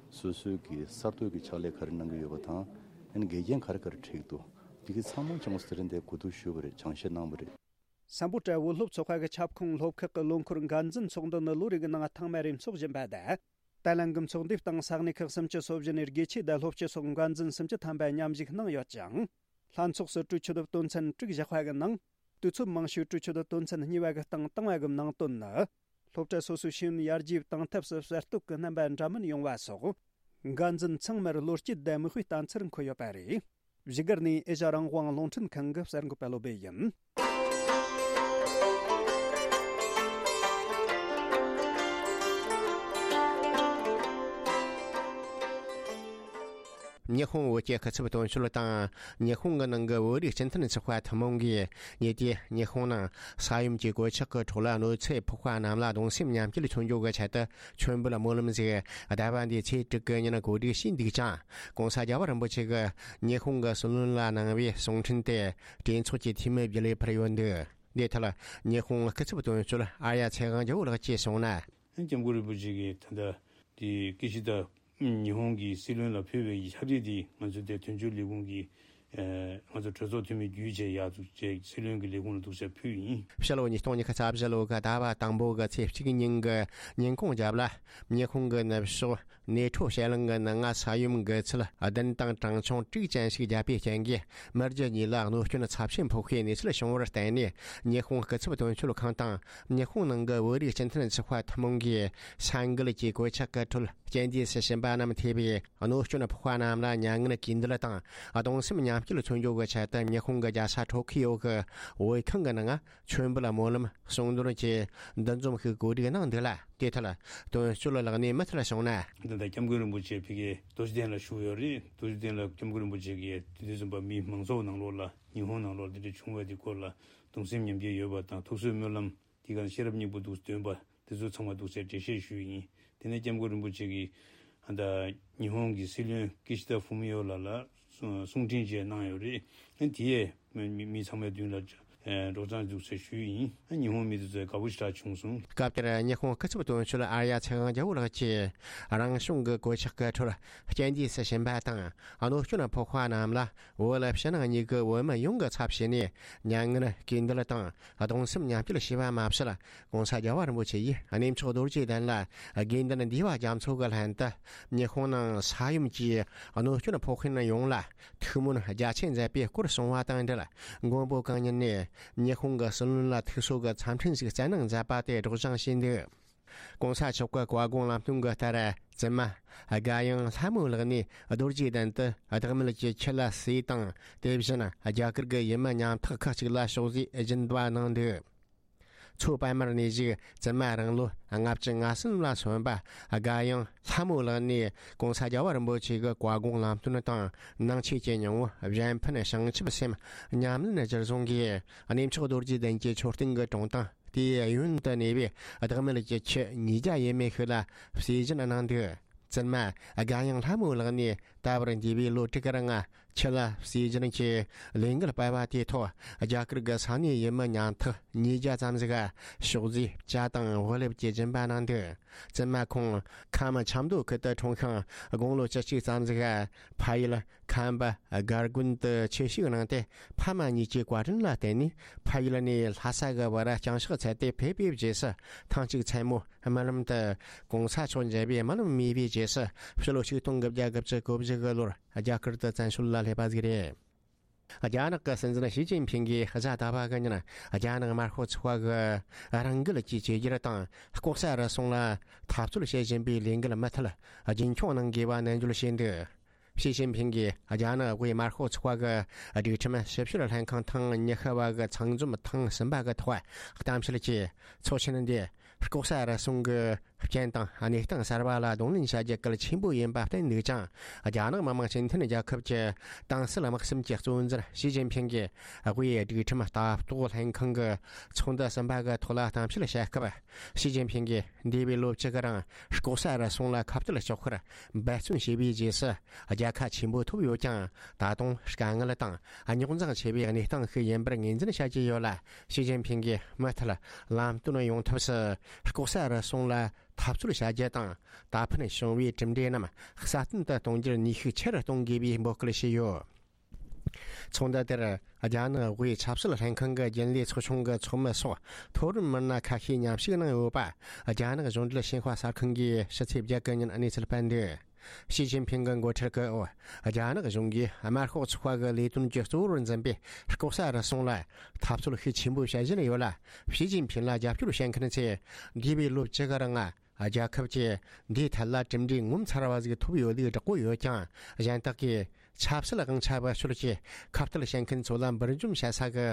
སོ་སོའི་གི་གསར་གཏོད་ཀྱི་ཕྱག་ལས་ག་རེ་གནང་གི་ཡོད་པ་དང་། ཨ་ནི་འགལ་རྐྱེན་ག་རེ་ག་རེ་འཕྲད་ཀྱི་འདུག་འདི་གའི་ཚང་མ་ཅང་གོ་སི་རིན་དེ་གོ་བསྡུར་ཞུས་པ་རེད། སྦྱང་བཤད་གནང་བ་རེད། སམ་བྷོ་ཊ་བོད་སློབ་ཚོགས་པ་གི་ཁྱབ་ཁོངས་སློབ་ཁག་གི་ལོ་འཁོར་འགན་འཛིན་ཚོགས་འདུ་ནི་ལོ་རེ་གི་ནང་ཐེངས་མ་རེ་འཚོགས་བཞིན་པ་དང་། ད་ལན་གྱི་ཚོགས་འདུའི་སྟེང་ས་གནས་ཁག་སུམ་ཅུ་སོ་བཞི་ནས་དགེ་ཆོས་དང་སློབ་སྤྱི་སོགས་འགན་འཛིན་སུམ་ཅུ་ཐམ་པ་མཉམ་ཞུགས་གནང་ཡོད་ཅིང་། ལྷན་ཚོགས་སུ་གྲོས་ཆོད་དོན་ཚན་དྲུག་བཞག་པ་གི་ནང་། དུས་ཚོད་མང་ཤོས་གྲོས་ཆོད་དོན་ཚན་གཉིས་པ་གི་སྟེང་བཏང་བ་གི་ནང་དོན་ནི། སློབ་གྲྭ་སོ་སོའི་ཤེས་ཡོན་ཡར་རྒྱས་གཏང་ཐབས་སུ་གསར་གཏོད་ཀྱི་རྣམ་པ་འདྲ་མིན་ཡོང་བ་སོགས། འགན་འཛིན་ཚང་མར་བློ་སྐྱེད་ལྡན་མིག་དཔེ་བསྟན་འཚེར་འཁོད་ཡོད་པ་རེད། བཞུགས་སྒར་ནས་ཨེ་ཤ་རང་དབང་རླུང་འཕྲིན་ཁང་གི་གསར་འགོད་པ་བློ་སྦེ་ཡིན། ཉི་ཧོང་བོད་ཀྱི་སྐུ་ཚབ་དོན་གཅོད་དང་། ཉི་ཧོང་གི་ནང་གི་བོད་རིགས་སྤྱི་མཐུན་ཚོགས་པ་ཐུན་མོང་གིས་ཉེ་དུས་ཉི་ཧོང་ནང་ས་ཡོམ་གྱི་གོད་ཆག་གི་འཕྲོ་ལ་གནོད་འཚེ་ཕོག་པ་རྣམས་ལ་གདུང་སེམས་མཉམ་སྐྱེད་མཚོན་རྒྱུ་གི་ཆེད་དུ། མཆོད་འབུལ་སྨོན་ལམ་ཞིག་ཟླ་བ་འདིའི་ཚེས་དྲུག་གི་ཉིན་གོ་སྒྲིག་བྱས་འདུག་ཅིང་། ༸གོང་ས་རྒྱལ་བ་རིན་པོ་ཆེ་གིས་ཉི་ཧོང་གི་སྲིད་བློན་ལ་གནང་བའི་གསུང་འཕྲིན་དེ་གྲོས་ཚོགས་ཀྱི་འཐུས་མི་བརྒྱུད་ལས་ཕུལ་ཡོད་འདུག། འདིའི་ཐད་ཉི་ཧོང་སྐུ་ཚབ་དོན་གཅོད་ཨར་ཡ་ཚེ་དབང་རྒྱལ་པོ་ལགས་ཀྱིས་གསུངས་ན། སྐྱབས་མགོན་རིན་པོ་ཆེ་གིས་ད་ལྟ་དེ་ཀི་ཤི་ད་ཉི་ཧོང་གི་སྲིད་བློན་ལ་ཕུལ་བའི་ཕྱག་བྲིས་དེ་ང་ཚོ་དེ་དོན་གཅོད་ལས་ཁུངས་ཀྱི་ཨ་ང་ཚོ་གྲོས་ཚོགས་འཐུས་མི་བརྒྱུད་བྱས་ཡར་འཛུགས་བྱས་སྲིད་བློན་གྱི་ལས་ཁུངས་ལ་འཛུགས་བྱས་ཕུལ་ཡིན། ཕྱི་ལོ་ཉིས་སྟོང་ཉི་ཤུ་རྩ་བཞི་ལོ་གི་ཟླ་བ་དང་པོ་གི་ཚེས་གཅིག་ཉིན་གྱི་ཉིན་གུང་རྒྱབ་ལ། ཉི་ཧོང་གི་ནུབ་ཕྱོགས་ནེ་ཁྲོ་བྱེ་གླིང་གི་ནང་ང་ས་ཡོམ་འགོས་ཚད་བདུན་དང་གྲངས་ཆུང་དྲུག་ཅན་ཞིག་བརྒྱབ་པའི་རྐྱེན་གྱིས། མི་རྒྱུ་གཉིས་ལ་གནོད་སྐྱོན་ཚབས་ཆེན་ཕོག་པའི་གནས་ཚུལ་བྱུང་བར་བརྟེན་ནས། ཉི་ཧོང་སྐུ་ཚབ་དོན་གཅོད་ཁང་དང་། ཉི་ཧོང་ནང་གི་བོད་རིགས་སྤྱི་མཐུན་ཚོགས་པ་ཐུན་མོང་གིས། ས་འགུལ་གྱི་གོད་ཆག་གི་ཁྲོད་རྐྱེན་འདས་སུ་ཕྱིན་པ་རྣམས་ཐེ་བའི་གནོད་སྐྱོན་ཕོག་པ་རྣམས་ལ་མྱ་ངན་གུས་འདུད་དང་། གདུང་སེམས་མཉམ་སྐྱེད་མཚོན་རྒྱུ་གི་ཆེད་དུ། ཉི་ཧོང་གི་རྒྱལ་ས་ཊོ་ཁི་ཡོ་གི་བོད་ཁང་གི་ནང་མཆོད་འབུལ་སྨོན་ལམ་གསུང་འདོན་གྱི་འདུ་འཛོམས་ཤིག་གོ་སྒྲིག་གནང་འདུག་ལ། དེ་ཐད་དོན་གཅོད་ལགས་ནས་མུ་མཐུད་གསུངས་ན། འདི་ལྟར་སྐྱབས་མགོན་རིན་པོ་ཆེ་ཕ་གིའི་རྡོ་རྗེ་གདན་ལ་བཞུགས་ཡོད་རེད། རྡོ་རྗེ་གདན་ལ་སྐྱབས་མགོན་རིན་པོ་ཆེ་གིས་དེ་དུས་ཙམ་པ་མི་མང་ཚོགས་ནང་ལོགས་ལ་ཉི་ཧོང་ནང་ལོགས་འདི་འདྲ་བྱུང་བའི་དེ་སྐོར་ལ་གདུང་སེམས་མཉམ་སྐྱེད་ཡོད་པ་དང་། ཐུགས་གསོའི་སྨོན་ལམ་དེ་ག་ཤེས་རབ་སྙིང་པོ་འདུག་འདོན་པ་དེ་ཚོ་ཚང་མ་འདུག་སེ་འགྲེལ་བཤད་ཞུས་ཡིན། དེ་ནས་སྐྱབས་མགོན་རིན་པོ་ཆེ་གིས་ཨ་ད་ཉི་ཧོང་གི་སྲིད་བློན་ཀི་ཤི་ད་ཧྥུ་མི་ཡོ་ལགས་ལ་གསུང་འཕྲིན་ཅིག་གནང་ཡོད་རེད། དེ་ཡས་མི་མི་ཚང་མའི་མདུན་ལ་སྒྲོག་སྦྱང་འདུག་ཟེར་ཞུས་ཡིན། ཉི་ཧོང་མི་དེ་ཚོས་དགའ་པོ་ཞེ་དྲག་བྱུང་སོང་། སྐབས་དེར་ཉི་ཧོང་སྐུ་ཚབ་དོན་གཅོད་ཨར་ཡ་ཚེ་དབང་རྒྱལ་པོ་ལགས་ཀྱིས། རང་བྱུང་གི་གོད་ཆག་གི་ཁྲོད་རྐྱེན་འདས་སུ་ཕྱིན་པ་དང་། གནོད་སྐྱོན་ཕོག་པ་རྣམས་ལ་བོད་ཕྱི་ནང་གཉིས་ཀྱི་བོད་མི་ཡོངས་ཀྱི་ཚབ་བྱས་ནས། མྱ་ངན་གུས་འདུད་དང་གདུང་སེམས་མཉམ་སྐྱེད་ཞུས་པ་མ་ཟད། ༸གོང་ས་རྒྱལ་བ་རིན་པོ་ཆེ་ཡིས་གནས་མཆོག་རྡོ་རྗེ་གདན་ལ་དགེ་འདུན་འདུས་པ་རྒྱ་མཚོ་གི་ལྷན་དུ། ཉི་ཧོང་ནང་ས་ཡོམ་གྱིས་གནོད་སྐྱོན་ཕོག་མཁན་ཡོངས་ལ་ཐུགས་སྨོན་རྒྱ་ཆེ་མཛད་པའི་སྐོར་གསུངས་པ་དང་འབྲེལ། མགོན་པོ་གང་ཉིད་ནས་ཉི་ཧོང་གི་སྲིད་བློན་ལ་ཐུགས་གསོ་གི་འཚམས་འཕྲིན་ཞིག་བསྩལ་གནང་མཛད་པ་དེ་སྒྲོག་སྦྱང་བྱས་འདུག། ༸གོང་ས་མཆོག་གི་བཀའ་དགོངས་ལམ་སྟོན་གྱི་ལྟར། བཙུན་མ་དགའ་ཡང་ལྷ་མོ་ལགས་ནས་རྡོ་རྗེ་གདན་དུ་བདག་མེད་ཀྱི་ཆུ་ལ་གསོལ་དང་། དེ་བཞིན་རྒྱ་གར་གྱི་ཡུལ་མི་ཉམ་ཐག་ཁག་ཅིག་ལ་ཕྱག་རྫས་སྦྱིན་པ་གནང་འདུག། མཚོ་པདྨར་གནས་བཞུགས་བཙུན་མ་རང་ལོ་ལྔ་བཅུ་ང་གསུམ་ལ་སོན་པ་དགའ་ཡང་ལྷ་མོ་ལགས་ནས་༸གོང་ས་རྒྱལ་བ་རིན་པོ་ཆེ་གི་བཀའ་དགོངས་ལམ་སྟོན་དང་། ནང་ཆོས་ཀྱི་སྙིང་པོ་གཞན་ཕན་བྱང་ཆུབ་སེམས་ཉམས་ལེན་གཞིར་བཟུང་གིས། གནས་མཆོག་རྡོ་རྗེ་གདན་གྱི་མཆོད་རྟེན་གྱི་དྲུང་དང་། དེའི་གཡོན་དུ་གནས་པའི་བདག་མེད་ཀྱི་ཆུ་ཉིས་བརྒྱ་ཡས་མས་ཤིག་ལ་གསོལ་སྦྱིན་གནང་འདུག། བཙུན་མ་དགའ་ཡང་ལྷ་མོ་ལགས་ནས་ད་བར་འདས་པའི་ལོ་དྲུག་གི་རིང་ཆུ་ལ་གསོལ་སྦྱིན་གྱི་ལས་འགུལ་སྤེལ་བ་དེའི་ཐོག་རྒྱ་གར་གྱི་ས་གནས་ཡུལ་མི་ཉམ་ཐག་ཉིས་བརྒྱ་ཙམ་ཞིག་ཕྱག་རྫས་ཇ་དང་བག་ལེབ་ཀྱི་སྦྱིན་པ་གནང་འདུག། བཙུན་མ་ཁོང་ཁམས་ཆབ་མདོ་ཁུལ་དུ་འཁྲུངས་ཤིང་། དགུང་ལོ་བཅུ་གཅིག་ཙམ་ཞིག་ཕ་ཡུལ་ཁམས་པ་སྒར་དགོན་དུ་ཆོས་ཞུགས་གནང་སྟེ། ཕ་མ་གཉིས་ཀྱི་བཀའ་དྲིན་ལ་བརྟེན་ནས་ཕ་ཡུལ་ནས་ལྷ་ས་གི་བར་བསྐྱངས་གཤེགས་ཚར་ཏེ་ཕེབས་པའི་རྗེས་སུ། ཐེངས་གཅིག་མཚན་མོ་རྨི་ལམ་དུ་༸གོང་ས་མཆོག་མཇལ་བའི་རྨི་ལམ་རྨིས་པའི་རྗེས་སུ། ཕྱི་ལོ་ཆིག་སྟོང་དགུ་བརྒྱ་དགུ་བཅུ་གོ་བཞི་གི་ལོར་རྒྱ་གར་དུ་བཙན་བྱོལ་ལ་སླེབས་པ་ཞིག་རེད། རྒྱ་ནག་གི་སྲིད་འཛིན་ཞི་ཅིན་ཕིང་གིས་གཟའ་ཟླ་བ་གི་ཉིན་རྒྱ་ནག་དམར་ཤོག་ཚོགས་པ་གི་རང་འགུལ་གྱི་བཅོས་སྒྱུར་དང་ལྐོག་ཟ་རུལ་སུངས་ལ་འཐབ་རྩོད་བྱེད་བཞིན་པའི་ལས་འགུལ་མུ་མཐུད་རྒྱུན་འཁྱོངས་གནང་དགོས་པ་ནན་བརྗོད་བྱས་འདུག། ཞི་ཅིན་ཕིང་གིས་རྒྱ་ནག་དབུས་དམར་ཤོག་ཚོགས་པ་གི་སྒྲིག་ཁྲིམས་ཞིབ་བཤེར་ལྷན་ཁང་ཐེངས་ཉི་ཤུ་བ་གི་ཚང་འཛོམས་ཐེངས་གསུམ་པ་གི་ཐོག་གཏམ་བཤད་ཀྱིས། ཚོགས་ཆེན་འདི་ལྐོག་ཟ་རུལ་སུངས་ཀྱི་རྐྱེན་དང་གནས་སྟངས་གསར་པ་ལ་གདོང་ལེན་བྱ་རྒྱུ་གལ་ཆེན་པོ་ཡིན་པ་བསྟན་འདུག་ཅིང་། རྒྱ་ནག་མི་དམངས་སྤྱི་མཐུན་རྒྱལ་ཁབ་ཀྱི་ཏང་སྲིད་དམག་གསུམ་གྱི་གཙོ་འཛིན་ཞི་ཅིན་ཕིང་གིས་དབུས་སྒྲིག་ཁྲིམས་ལྟ་རྟོག་ལྷན་ཁང་གི་ཚོགས་འདུ་གསུམ་པ་གི་ཐོག་ལ་གཏམ་བཤད་བྱས་སྐབས། ཞི་ཅིན་ཕིང་གིས་འདས་པའི་ལོ་བཅུ་གི་རིང་ལྐོག་ཟ་རུལ་སུངས་ལ་ཁ་གཏད་གཅོག་པར་འབད་བརྩོན་བྱས་པའི་རྗེས་སུ། རྒྱལ་ཁ་ཆེན་པོ་ཐོབ་ཡོད་ཀྱང་། ད་དུང་དཀའ་ངལ་དང་རྙོག་འཛིང་ཆེ་བའི་གནས་སྟངས་ཤིག་ཡིན་པར་ངོས་འཛིན་བྱ་རྒྱུ་ཡོད་ལ། ཞི་ཅིན་ཕིང་གིས་མུ་མཐུད་ལམ་སྟོན་ཡོང་ཐབས་སུ་ལྐོག་ཟ་རུལ་སུངས་ལ་འཐབ་རྩོད་བྱ་རྒྱུ་དང་། ད་ཕན་བྱུང་བའི་གྲུབ་འབྲས་རྣམས་སྲ་བརྟན་དུ་གཏོང་རྒྱུར་ནུས་ཤུགས་ཆེ་རུ་གཏོང་དགོས་པའི་འབོད་སྐུལ་བྱས་ཡོད། ཚོགས་འདུ་དེར་རྒྱ་ནག་དབུས་ཆབ་སྲིད་ལྷན་ཁང་གི་རྒྱུན་ལས་ཚོགས་ཆུང་གི་ཚོགས་མི་སོགས་མཐོ་རིམ་མི་སྣ་ཁ་ཤས་མཉམ་ཞུགས་གནང་ཡོད་པ། རྒྱ་ནག་གཞུང་འབྲེལ་ཞིན་ཧྭ་གསར་ཁང་གིས་ཕྱི་ཚེས་བརྒྱད་གི་ཉིན་གནས་ཚུལ་སྤེལ་འདུག། ཞི་ཅིན་ཕིང་གི་འགོ་ཁྲིད་ཀྱི་འོག་རྒྱ་ནག་གཞུང་གིས་དམར་ཤོག་ཚོགས་པ་གི་ལས་དོན་གྱི་གཙོ་བོར་འཛིན་པའི་ལྐོག་ཟ་རུལ་སུངས་ལ་འཐབ་རྩོད་ཤུགས་ཆེན་པོ་བྱེད་བཞིན་ཡོད་ལ། ཞི་ཅིན་ཕིང་ལ་རྒྱབ་སྐྱོར་བྱེད་མཁན་ཚོས་འདས་པའི་ལོ་བཅུ་གི་རིང་ང་ རྒྱལ་ཁབ་ཀྱིས་འདིའི་ཐད་ལ་གྲུབ་འབྲས་ངོ་མཚར་བ་ཟིག་ཐོབ་ཡོད་ལུགས་བསྒྲགས་ཀྱི་ཡོད་ཀྱང་། གཞན་དག་གིས་ཆབ་སྲིད་དབང་ཆ་བེད་སྤྱོད་ཀྱིས་ཁ་གཏད་བྱེད་མཁན་ཚོ་ལ་འབུར་འཇོམས་བྱེད་ས་གི་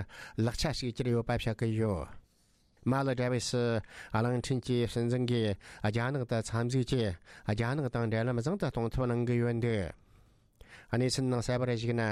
ལག་ཆ་ཞིག་གྱུར་ཡོད་པ་བཤད་ཀྱི་ཡོད། མལ་ཌི་བྷི་སི་གླིང་ཕྲན་གྱི་སྲིད་འཛིན་གྱིས་རྒྱ་ནག་ཏུ་འཚམས་གཟིགས་ཀྱིས་རྒྱ་ནག་དང་འབྲེལ་ལམ་བཟང་དུ་གཏོང་ཐབས་གནང་གི་ཡོད་འདུག་གནས་ཚུལ་ནང་གསལ་བར་གཞིགས་ན།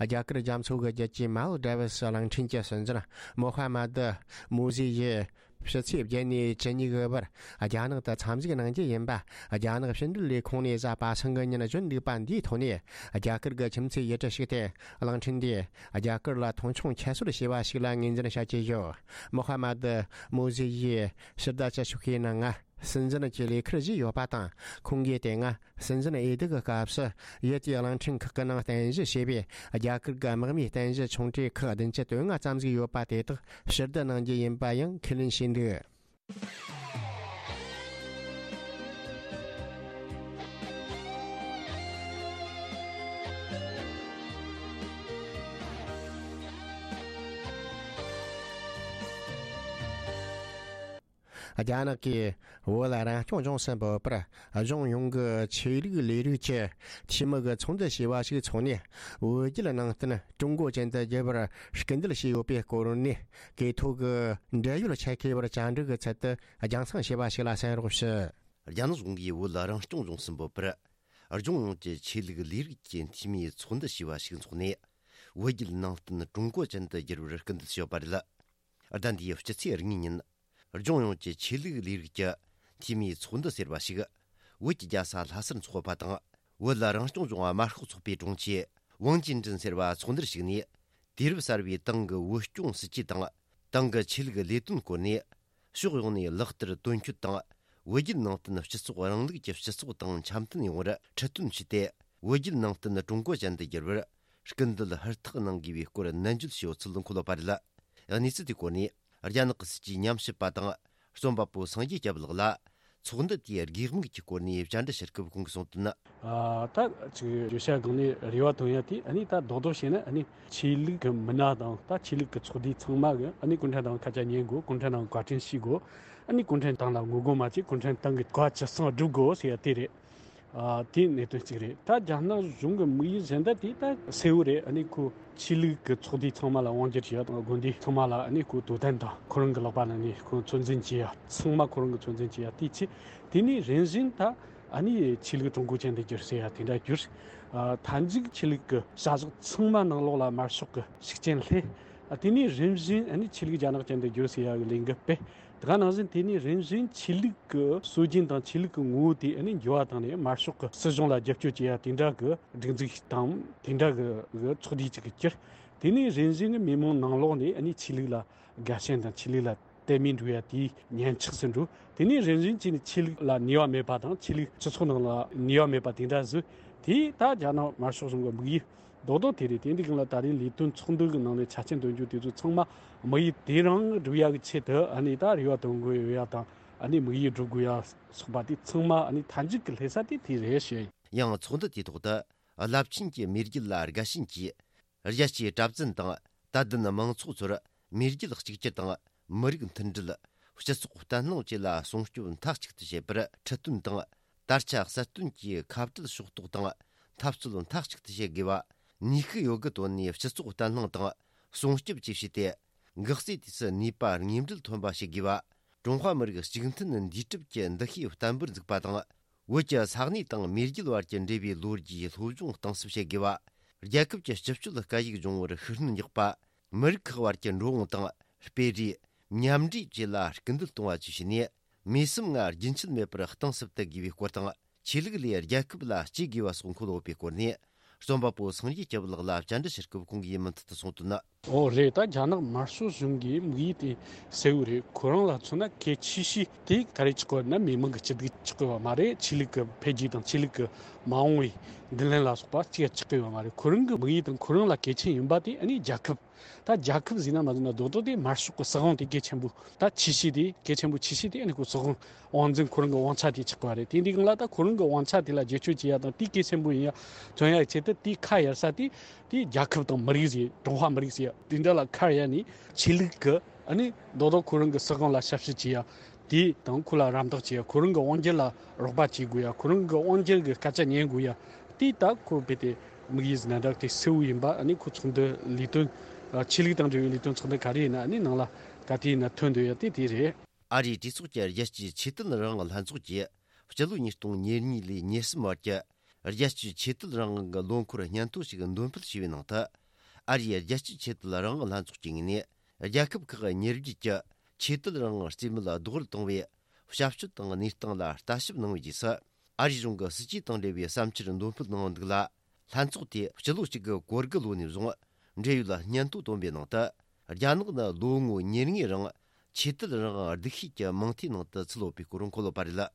རྒྱ་གར་རྒྱ་མཚོ་གི་རྒྱུད་ཀྱི་མལ་ཌི་བྷི་སི་གླིང་ཕྲན་གྱི་སྲིད་འཛིན་མོ་ཧ་མ་དི་མོ་ཟི་ཡིས་ཕྱི་ཚེས་བརྒྱད་ནས་བཅུ་གཉིས་གི་བར་རྒྱ་ནག་ཏུ་འཚམས་གཟིགས་གནང་རྒྱུ་ཡིན་པ། རྒྱ་ནག་ཕྱི་འབྲེལ་ལས་ཁུངས་ནས་གཟའ་པ་སངས་ཀྱི་ཉིན་བརྗོད་འདུག་པ་འདིའི་ཐོག་ནས། རྒྱ་གར་གྱི་ཁྱིམ་མཚེས་ཡུལ་གྲུ་ཞིག་སྟེ། གླིང་ཕྲན་འདིས་རྒྱ་གར་ལ་མཐོང་ཆུང་ཁྱད་གསོད་བྱས་པ་ཞིག་ལ་ངོས་འཛིན་བྱ་རྒྱུ་ཡོད། མོ་ཧ་མ་དི་མོ་ཟི་ཡིས་ཕྱི་ཟླ་བཅུ་དྲུག་པའི་ནང་ང་སྲིད་འཛིན་གྱི་ལས་ཁུར་བཞེས་ཡོད་པ་དང་། ཁོང་གིས་དེ་སྔ་སྲིད་འཛིན་འོས་བསྡུ་གི་སྐབས་སུ་ཡུལ་དེའི་གླིང་ཕྲན་ཁག་གི་ནང་རྟེན་གཞི་བྱས་པའི་རྒྱ་གར་གྱི་དམག་མིའི་རྟེན་གཞི་ཆུང་གྲས་ཁག་བདུན་ཅུ་དོན་ལྔ་ཙམ་ཟིག་ཡོད་པ་དེ་དག་ཕྱིར་བསྡུ་གནང་རྒྱུ་ཡིན་པ་ཡང་ཁས་ལེན་བྱས་འདུག་རྒྱ་ནག་གིས་བོད་རང་སྐྱོང་ལྗོངས་སུ་འབོད་པར། གཞུང་ཡོངས་ཀྱི་ཆོས་ལུགས་ལས་རིགས་ཀྱི་འཐུས་མི་གི་ཚོགས་འདུ་ཞེས་པ་ཞིག་འཚོགས་ནས། བོད་བརྒྱུད་ནང་བསྟན་ཀྲུང་གོ་ཅན་དུ་བསྒྱུར་བར་སྐུལ་འདེད་བྱས་ཡོད་པའི་སྐོར་ནས། གྲོས་ཐོག་གི་འབྲེལ་ཡོད་ཆེད་མཁས་པར་བཅར་འདྲི་གི་ཚུལ་དུ་རྒྱང་སྲིང་བྱས་པ་ཞིག་ལ་གསན་རོགས་ཞུ། རྒྱ་ནག་གཞུང་གིས་བོད་རང་སྐྱོང་ལྗོངས་སུ་འབོད་པར། ལྗོངས་ཡོངས་ཀྱི་ཆོས་ལུགས་ལས་རིགས་ཀྱི་འཐུས་མིའི་ཚོགས་འདུ་ཞེས་པ་ཞིག་འཚོགས་ནས། བོད་བརྒྱུད་ནང་བསྟན་ཀྲུང་གོ་ཅན་དུ་བསྒྱུར་བར་སྐུལ་འདེད་བྱས་ཡོད་པ་རེད། ཟླ་འདིའི་སྤྱི་ཚེས་གཉིས་ཉིན། ལྗོངས་ཡོངས་ཀྱི་ཆོས་ལུགས་ལས་རིགས་ཀྱི་འཐུས་མིའི་ཚོགས་འདུ་ཟེར་བ་ཞིག་བོད་ཀྱི་རྒྱལ་ས་ལྷ་སར་འཚོགས་པ་དང་། བོད་རང་སྐྱོང་ལྗོངས་དམར་ཤོག་ཚོགས་པའི་དྲུང་ཆེ་ཝང་ཅིན་ཀྲིན་ཟེར་བ་ཚོགས་འདུར་ཞུགས་ནས། དུས་རབས་གསར་བའི་ཏང་གི་བོད་སྐྱོང་སྲིད་ཇུས་དང་། ཏང་གི་ཆོས་ལུགས་ལས་དོན་སྐོར་ནས། ཕྱོགས་ཡོངས་ནས་ལག་བསྟར་དོན་འཁྱོལ་དང་། བོད་བརྒྱུད་ནང་བསྟན་སྤྱི་ཚོགས་རིང་ལུགས་ཀྱི་སྤྱི་ཚོགས་དང་འཆམ་མཐུན་ཡོང་བར་ཁྲིད་སྟོན་བྱས་ཏེ། བོད་བརྒྱུད་ནང་བསྟན་ཀྲུང་གོ་ཅན་དུ་བསྒྱུར་བར་སྐུལ་འདེད་ཧུར་ཐག་གནང་དགོས་པའི་སྐོར་ནན་བརྗོད་བྱས་ཡོད་ཚུལ་འཁོད་ཡོད་པ་རེད། གནས་ཚུལ་དེའི་སྐོར་ནས་རྒྱ་ནག་གི་སྲིད་ཇུས་ཉམས་ཞིབ་པ་དང་རྩོམ་པ་པོ་སངས་རྒྱས་སྐྱབས་ལགས་ལ། ཚོགས་འདུ་དེའི་དགོས་དམིགས་ཀྱི་སྐོར་ནས་བཅར་འདྲི་ཞུ་སྐབས་ཁོང་གིས་གསུངས་དོན། ཨ། ད་ཅིག་བརྗོད་བྱ་སྒང་ནས་རེ་བ་བཏོན་ཡ་དེ། ཨ་ནི་ད་རྡོག་རྡོག་བཤད་ན། ཨ་ནི་ཆོས་ལུགས་ཀྱི་མི་སྣ་དང་ད་ཆོས་ལུགས་ཀྱི་ཚོགས་སྡེ་ཚང་མ་གིས་ཨ་ནི་གུང་ཁྲན་ཏང་སྐད་ཆ་ཉན་དགོས། གུང་ཁྲན་ཏང་བཀའ་དྲིན་ཤེས་དགོས། ཨ་ནི་གུང་ཁྲན་ཏང་ལ་ངོ་རྒོལ་མ་བྱེད། གུང་ཁྲན་ཏང་གི་བཀའ་ཇི་གསུང་སྒྲུབ་དགོས་ཟེར་ཡ་དེ་རེད། ཨ། དེ་གནད་དོན་གཅིག་རེད། ད་རྒྱ་ནག་གཞུང་གི་དམིགས་ཡུལ་གཞན་དག་དེ་ད་གསལ་བོ་རེད། ཨ་ནི་ཁོ་ཆོས་ལུགས་ཀྱི་ཚོགས་སྡེ་ཚང་མ་ལ་དབང་སྒྱུར་བྱེད་ཡ་དང་། དགོན་སྡེ་ཚང་མ་ལ་ཨ་ནི་ཁོ་དོ་དམ་དང་། ཁོ་རང་གི་ལག་པ་ནང་ནས་ཁོ་ཚོད་འཛིན་བྱེད་ཡ། ཚང་མ་ཁོ་རང་གིས་ཚོད་འཛིན་བྱེད་ཡ་དེ་བྱས། དེ་ནས་རིམ་བཞིན་ད་ཨ་ནི་ཆོས་ལུགས་ཀྲུང་གོ་ཅན་དུ་བསྒྱུར་ཟེར་ཡ་དེ་འདྲ་བསྒྱུར། ཨ། མཐའ་མཇུག་ཆོས་ལུགས་ཀྱི་བྱ་གཞག་ཚང་མ་ནང་ལོགས་ལ་དམར་ཤོག་གི་ཤུགས་རྐྱེན་སླེབས། ཨ། དེ་ནས་རིམ་བཞིན་ཨ་ནི་ཆོས་ལུགས་རྒྱ་ནག་ཅན་དུ་བསྒྱུར་ཟེར་ཡ་གི་ལས་འགུལ་སྤེལ། དེ་ག་ནང་བཞིན་དེ་ནས་རིམ་བཞིན་ཆོས་ལུགས་ཀྱི་སྲོལ་རྒྱུན་དང་ཆོས་ལུགས་ཀྱི་ངོ་བོ་དེ་ཨ་ནི་འགྱུར་བ་བཏང་ནས། དམར་ཤོག་གི་སྲིད་གཞུང་ལ་རྒྱབ་སྐྱོར་བྱེད་ཡ་དེ་འདྲ་གི་སྒྲིག་འཛུགས་ཤིག་དང་། དེ་འདྲ་གི་གི་ཚོགས་སྡེ་ཅིག་གིས་གྱུར། དེ་ནས་རིམ་བཞིན་མི་མང་ནང་ལོགས་ནས་ཨ་ནི་ཆོས་ལུགས་ལ་དགའ་ཞེན་དང་ཆོས་ལུགས་ལ་དད་མོས་འགྲོ་ཡ་དེ་ཉམས་ཆག་སུ་འགྲོ། དེ་ནས་རིམ་བཞིན་བྱས་ནས་ཆོས་ལུགས་ལ་ནུས་པ་མེད་པ་དང་། ཆོས་ལུགས་སྤྱི་ཚོགས་ནང་ལ་ནུས་པ་མེད་པ་དེ་འདྲ་བཟོས། དེ་ད་རྒྱ་ནག་དམར་ཤོག་གཞུང་གི་དམིགས་ཡུལ་རྡོག་རྡོག་དེ་རེད། དེ་འདི་གང་ལ་ད་རེས་ལས་དོན་ཚོགས་འདུ་གི་ནང་ནས་ཆ་རྐྱེན་འདོན་རྒྱུ་དེ་ཚོ་ཚང་མ་དམིགས་ཡུལ་དེ་རང་སྒྲུབ་ཡ་གི་ཆེད་དུ་ཨ་ནི་ད་རེ་བ་བཏོན་དགོས་ཡོད་ཡ་དང་། ཨ་ནི་དམིགས་ཡུལ་སྒྲུབ་དགོས་ཡ་སོགས་པ་དེ་ཚང་མ་ཨ་ནི་མཐའ་མཇུག་གི་སླེབས་ས་དེ་དེ་རེད་ཞུ་ཡ་ཡིན། ཡང་ཚོགས་འདུ་དེའི་ཐོག་ཏུ་རླབས་ཆེན་གྱི་མེས་རྒྱལ་ལ་དགའ་ཞེན་གྱིས། རྒྱལ་སྤྱིའི་གྲྭ་བཙུན་དང་དད་ལྡན་མང་ཚོགས་ཚོར་མེས་རྒྱལ་གཅིག་གྱུར་དང་། མི་རིགས་མཐུན་སྒྲིལ། སྤྱི་ཚོགས་བརྟན་ལྷིང་བཅས་ལ་སྲུང་སྐྱོབ་མཐའ་གཅིག་ཏུ་བྱེད་པར་ཁྲིད་སྟོན་དང་། དར་ཆ་གསལ་སྟོན་གྱིས་ཁ་བྲལ་ཕྱོགས་གཏོགས་དང་འཐབ་རྩོད་མཐའ་གཅིག་ཏུ་བྱེད་དགོས་པ། ནུས་ཤུགས་ཡོད་དགུ་བཏོན་ནས་སྤྱི་ཚོགས་བརྟན་ལྷིང་དང་སྲུང་སྐྱོབ་བཅས་བྱས་ཏེ། འགག་རྩའི་དུས་སུ་ནུས་པ་དངོས་འབྲེལ་ཐོན་པ་བྱེད་དགོས་པ། ཀྲུང་ཧྭ་མི་རིགས་གཅིག་མཐུན་འདུས་གྲུབ་ཀྱི་འདུ་ཤེས་བརྟན་པོར་འཛུགས་པ་དང་། བོད་ཀྱི་ས་གནས་དང་མེས་རྒྱལ་བར་གྱི་འབྲེལ་བའི་ལོ་རྒྱུས་སློབ་སྦྱོང་གཏིང་ཟབ་བྱེད་དགོས་པ། རྒྱལ་ཁབ་ཀྱི་སྤྱི་སྤྱོད་སྐད་ཡིག་སྦྱོང་བར་ཤུགས་སྣོན་རྒྱག་པ། མི་རིགས་ཁག་བར་གྱི་འགྲོ་འོང་དང་སྤེལ་རེས། མཉམ་འདྲེས་བཅས་ལ་སྐུལ་འདེད་གཏོང་བ་བཅས་བྱས་ནས། མུས་བསམ་ལྔ་རྒྱུན་ཆད་མེད་པར་གཏིང་ཟབ་ཏུ་དགོས་པའི་སྐོར་དང་། ཆོས་ལུགས་ལས་རྒྱལ་ཁབ་ལ་གཅེས་དགོས་པ་སོགས་འཁོད་ཡོད་པའི་སྐོར་ནས། རྩོམ་པ་པོ་སངས་རྒྱས་སྐྱབས་ལགས་ལ་བཅར་འདྲི་ཞུ་སྐབས་ཁོང་གིས་མུ་མཐུད་དུ་གསུངས་དོན། ཨོ་རེད། ད་རྒྱ་ནག་དམར་ཤོག་གཞུང་གི་དམིགས་ཡུལ་དེ་གསལ་བོ་རེད། ཁོ་རང་ལ་མཚོན་ན་གལ་ཆེ་ཤོས་དེ་ག་རེ་ཆགས་ཀྱི་ཡོད་ན། མི་མང་གི་སྐྱིད་སྡུག་ཆགས་ཀྱི་ཡོད་མ་རེད། ཆོས་ལུགས་ཀྱི་འཕེལ་རྒྱས་དང་ཆོས་ལུགས་ཀྱི་མ་འོངས་པའི་མདུན་ལམ་ལ་སོགས་པ་གཅིག་ཆགས་ཀྱི་ཡོད་མ་རེད། ཁོ་རང་གི་དམིགས་ཡུལ་དང་ཁོ་རང་ལ་གལ་ཆེན་ཡིན་པ་དེ་ཨ་ནི་རྒྱལ་ཁབ། ད་རྒྱལ་ཁབ་ཟེར་ན་མ་ཟེར་ན་རྡོག་རྡོག་དེ་དམར་ཤོག་གི་སྲིད་དབང་དེ་གལ་ཆེན་པོ། ད་ཆེ་ཤོས་དེ་གལ་ཆེན་པོ་ཆེ་ཤོས་དེ་ཨ་ནི་ཁོ་སྲིད་དབང་དབང་འཛིན་ཁོ་རང་གི་དབང་ཆ་དེ་ཆགས་པ་རེད། དེ་འདི་སྒང་ལ་ད་ཁོ་རང་གི་དབང་ཆ་དེ་ལ་བརྒྱུད་སྐྱོར་བྱེད་ཡ་དང་། དེ་གལ་ཆེན་པོ་ཡིན་ཡ་མཚོན་ཡ་ཆེད་དུ་དེ་ཁ་གཡར་ས་དེ་དེ་རྒྱལ་ཁབ་དང་མི་རིགས་ཟེར། ཀྲུང་ཧྭ་མི་རིགས་ཟེར་ཡ་དེ་འདྲ་ལ་ཁ་གཡར་ནས་ཆོས་ལུགས་ཀྱི་ ཨ་ནི་རྡོག་རྡོག་ཁོ་རང་གི་སྲིད་དབང་ལ་ཞབས་ཞུ་བྱེད་ཡ། དེ་དང་ཁོ་ལ་རམ་འདེགས་བྱེད་ཡ། ཁོ་རང་གི་དབང་སྒྱུར་ལ་རོགས་པ་བྱེད་དགོས་ཡ། ཁོ་རང་གི་དབང་སྒྱུར་གི་སྐད་ཆ་ཉན་དགོས་ཡ། དེ་ད་ཁོ་རྦད་དེ་དམིགས་ཡུལ་ཟིན་ན་འདྲ་དེ་གསལ་བོ་ཡིན་པ། ཨ་ནི་ཁོ་ཚོགས་འདུ་ལས་དོན་ཆོས་ལུགས་དང་འབྲེལ་བའི་ལས་དོན་ཚོགས་འདུ་ག་རེ་ཡིན་ན་ཨ་ནི་ནང་ལ་ག་དུས་ཡིན་ན་ཐོན་འདོད་ཡ་དེ་དེ་རེད། ཨ་རིའི་གྲོས་ཚོགས་ཀྱི་རྒྱལ་སྤྱིའི་ཆོས་དད་རང་དབང་ལྷན་ཚོགས་ཀྱིས་སྤྱི་ལོ་ཉིས་སྟོང་ཉེར་གཉིས་ལས་ཉེར་གསུམ་བར་གྱི་རྒྱལ་སྤྱིའི་ཆོས་དད་རང་དབང་གི་ལོ་འཁོར་སྙན་ཐོ་ཞིག་འདོན་སྤེལ་བྱས་པའི་ནང་དུ། ཨ་རིའི་རྒྱལ་སྤྱིའི་ཆོས་དད་རང་དབང་ལྷན་ཚོགས་ཀྱི་ངོས་ནས་རྒྱལ་ཁབ་ཁག་གི་མྱུར་བརྒྱུད་ཀྱི་ཆོས་དད་རང་དབང་རྩིས་མེད་ལ་རྡོག་རོལ་བཏང་བའི་བྱ་སྤྱོད་དང་གནས་སྟངས་ལ་ལྟ་ཞིབ་གནང་བའི་རྗེས་སུ། ཨ་རིའི་གཞུང་གི་སྲིད་ཇུས་དང་འབྲེལ་བའི་བསམ་འཆར་འདོན་སྤེལ་གནང་བ་འདུག་ལ། ལྷན་ཚོགས་དེས་སྤྱི་ལོ་གཅིག་དགུ་གོ་དགུ་ལོ་ནས་བཟུང་འབྲེལ་ཡོད་སྙན་ཐོ་བཏོན་པའི་ནང་དུ། རྒྱ་ནག་ནི་ལོ་ངོ་ཉེར་ལྔའི་རིང་ཆོས་དད་རང་དབང་སྡུག་ཤོས་ཀྱི་མིང་ཐོའི་ནང་དུ་ཚུད་ཡོད་པའི་སྐོར་འཁོད་ཡོད་པ་རེད།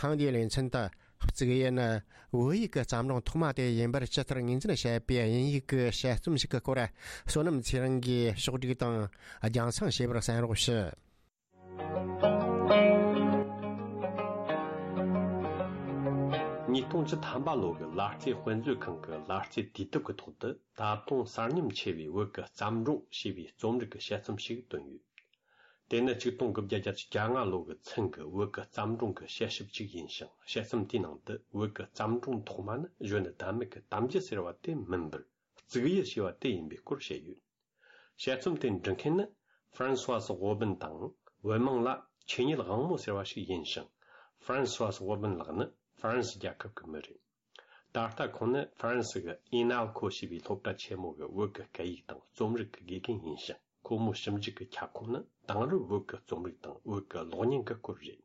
ཐེངས་འདིའི་ལེ་ཚན་དུ། གཙུག་གཡུ་ནི་བོད་ཡིག་གི་བརྩམས་སྒྲུང་ཐོག་མ་དེ་ཡིན་པར་ཇི་ལྟར་ངོས་འཛིན་བྱས་པའི་དབྱིན་ཡིག་གི་དཔྱད་རྩོམ་ཞིག་གི་སྐོར། བསོད་ནམས་ཚེ་རིང་གིས་ཕྱོགས་བསྒྲིགས་དང་རྒྱང་སྲིང་བྱས་པར་གསན་རོགས་ཞུ། ཉིས་སྟོང་བཅུ་ཐམ་པ་ལོ་གི་ལ་རྩེ་དཔེ་མཛོད་ཁང་གི་ལ་རྩེ་དུས་དེབ་ཀྱི་ཐོག་ཏུ། ད་དུང་གསར་རྙིང་ཆེ་བའི་བོད་ཀྱི་བརྩམས་སྒྲུང་ཞེས་པའི་རྩོམ་རིག་གི་དཔྱད་རྩོམ་ཞིག་བཏོན་ཡོད། དེ་ནི་ཆིག་སྟོང་དགུ་བརྒྱ་བརྒྱད་ཅུ་གྱ་ལྔ་ལོ་གི་ཚུན་གྱི་བོད་ཀྱི་བརྩམས་སྒྲུང་གི་དཔྱད་ཞིབ་ཅིག་ཡིན་ཞིང་། དཔྱད་རྩོམ་དེའི་ནང་དུ་བོད་ཀྱི་བརྩམས་སྒྲུང་ཐོག་མ་ནི་གཞོན་ནུ་ཟླ་མེད་ཀྱི་གཏམ་རྒྱུད་ཟེར་བ་དེ་མིན་པར། གཙུག་གཡུ་ཞེས་པ་དེ་ཡིན་པའི་སྐོར་བཤད་ཡོད། དཔྱད་རྩོམ་དེ་འབྲི་མཁན་ནི་ཧྥ་རན་སུ་ཝཱ་སི་ཝོ་བིན་དང་། བོད་མིང་ལ་ཆོས་ཉིད་དབང་མོ་ཟེར་བ་ཞིག་ཡིན་ཞིང་། ཧྥ་རན་སུ་ཝཱ་སི་ཝོ་བིན་ལགས་ནི་ཧྥ་རན་སི་རྒྱལ་ཁབ་ཀྱི་མི་རེད། ད་ལྟ་ཁོང་ནི་ཧྥ་རན་སི་གི་ཨི་ན་ཁོ་ཞེས་པའི་སློབ་གྲྭ་ཆེན་མོ་གི་བོད་ཀྱི་སྐད་ཡིག་དང་རྩོམ་རིག་གི་དགེ་རྒན་ཡིན་ཞིང་། ཁོ་མོའི་ཞིབ་འཇུག་གི་ཁྱབ་ཁོངས་ནི་དེང་རབས་བོད་ཀྱི་རྩོམ་རིག་དང་བོད་ཀྱི་གློག་བརྙན་གྱི་སྐོར་རེད།